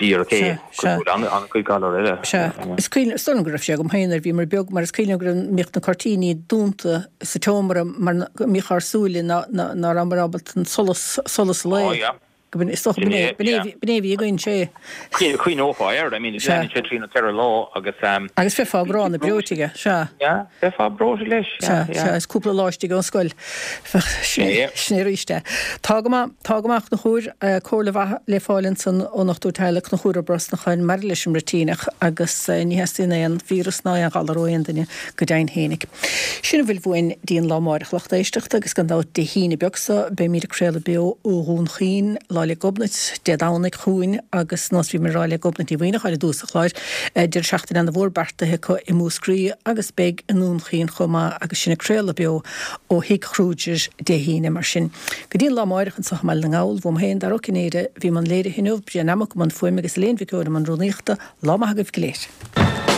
Díreach é, Sea, sea. cosúil le an-chuid galar eile. Sea. Is cuimhin, is dóigh liom go raibh sé agam féin nuair a bhíomar beag, mar is cuimhin liom go raibh, mbíodh na cuirtíní dúnta sa tseomra mar go mbíodh ár súile ná, ná, ná rabhamar ábalta an solas, solas lae. Oh yeah. Go b'in, is dócha Sin b'in é, é, b'in é, yeah. b'in é a bhí againn, sé. Chuimhneofá air, I mean, Sea. leanann sé trí nó ceithre lá agus. Agus bheifeá gránna breoite aige, sea. Yeah, bheifeá breoite leis, yeah, Sea, yeah. sea, is cúpla lá istigh ón scoil. Bheadh, sin é, Yeah. sin é arís é. Tá go maith, tá go maith, a Chonchúir, comhairle mhaith le fáil ansan ón ndochtúir teaghlaigh Conchúr Ó Brosnacháin maidir leis an mbruitíneach agus ní theastaíonn aon víreas ná aon ghalar ó aon duine go deimhin fhéinig. Sin a bhfuil uainn dtí an lá amáireach lucht éisteachta agus gan dabht Dé hAoine beag so beimíd ag craoladh beo ó Dhún Chaoin, Lá 'le Gobnait, Dé Domhnaigh chugainn agus nós bhíomar ag rá le Gobnait Ní Mhaoineacháin i dtús an chláir, deireadh seachtaine ana mhór beartaithe acu i Múscraí agus beidh i nDún Chaoin chomh maith agus sinn ag craoladh beo ó Thigh Kruger Dé hAoine mar sin. Go dtí an lá amáireach anso i mBaile na nGall, uaim féin, Dara Ó Cinnéide, a bhí i mbun léirithe inniu, Brian Nammock i mbun fuaime agus Elaine Mhic Eoin i mbun rúnaíochta, lá maith agaibh go léir.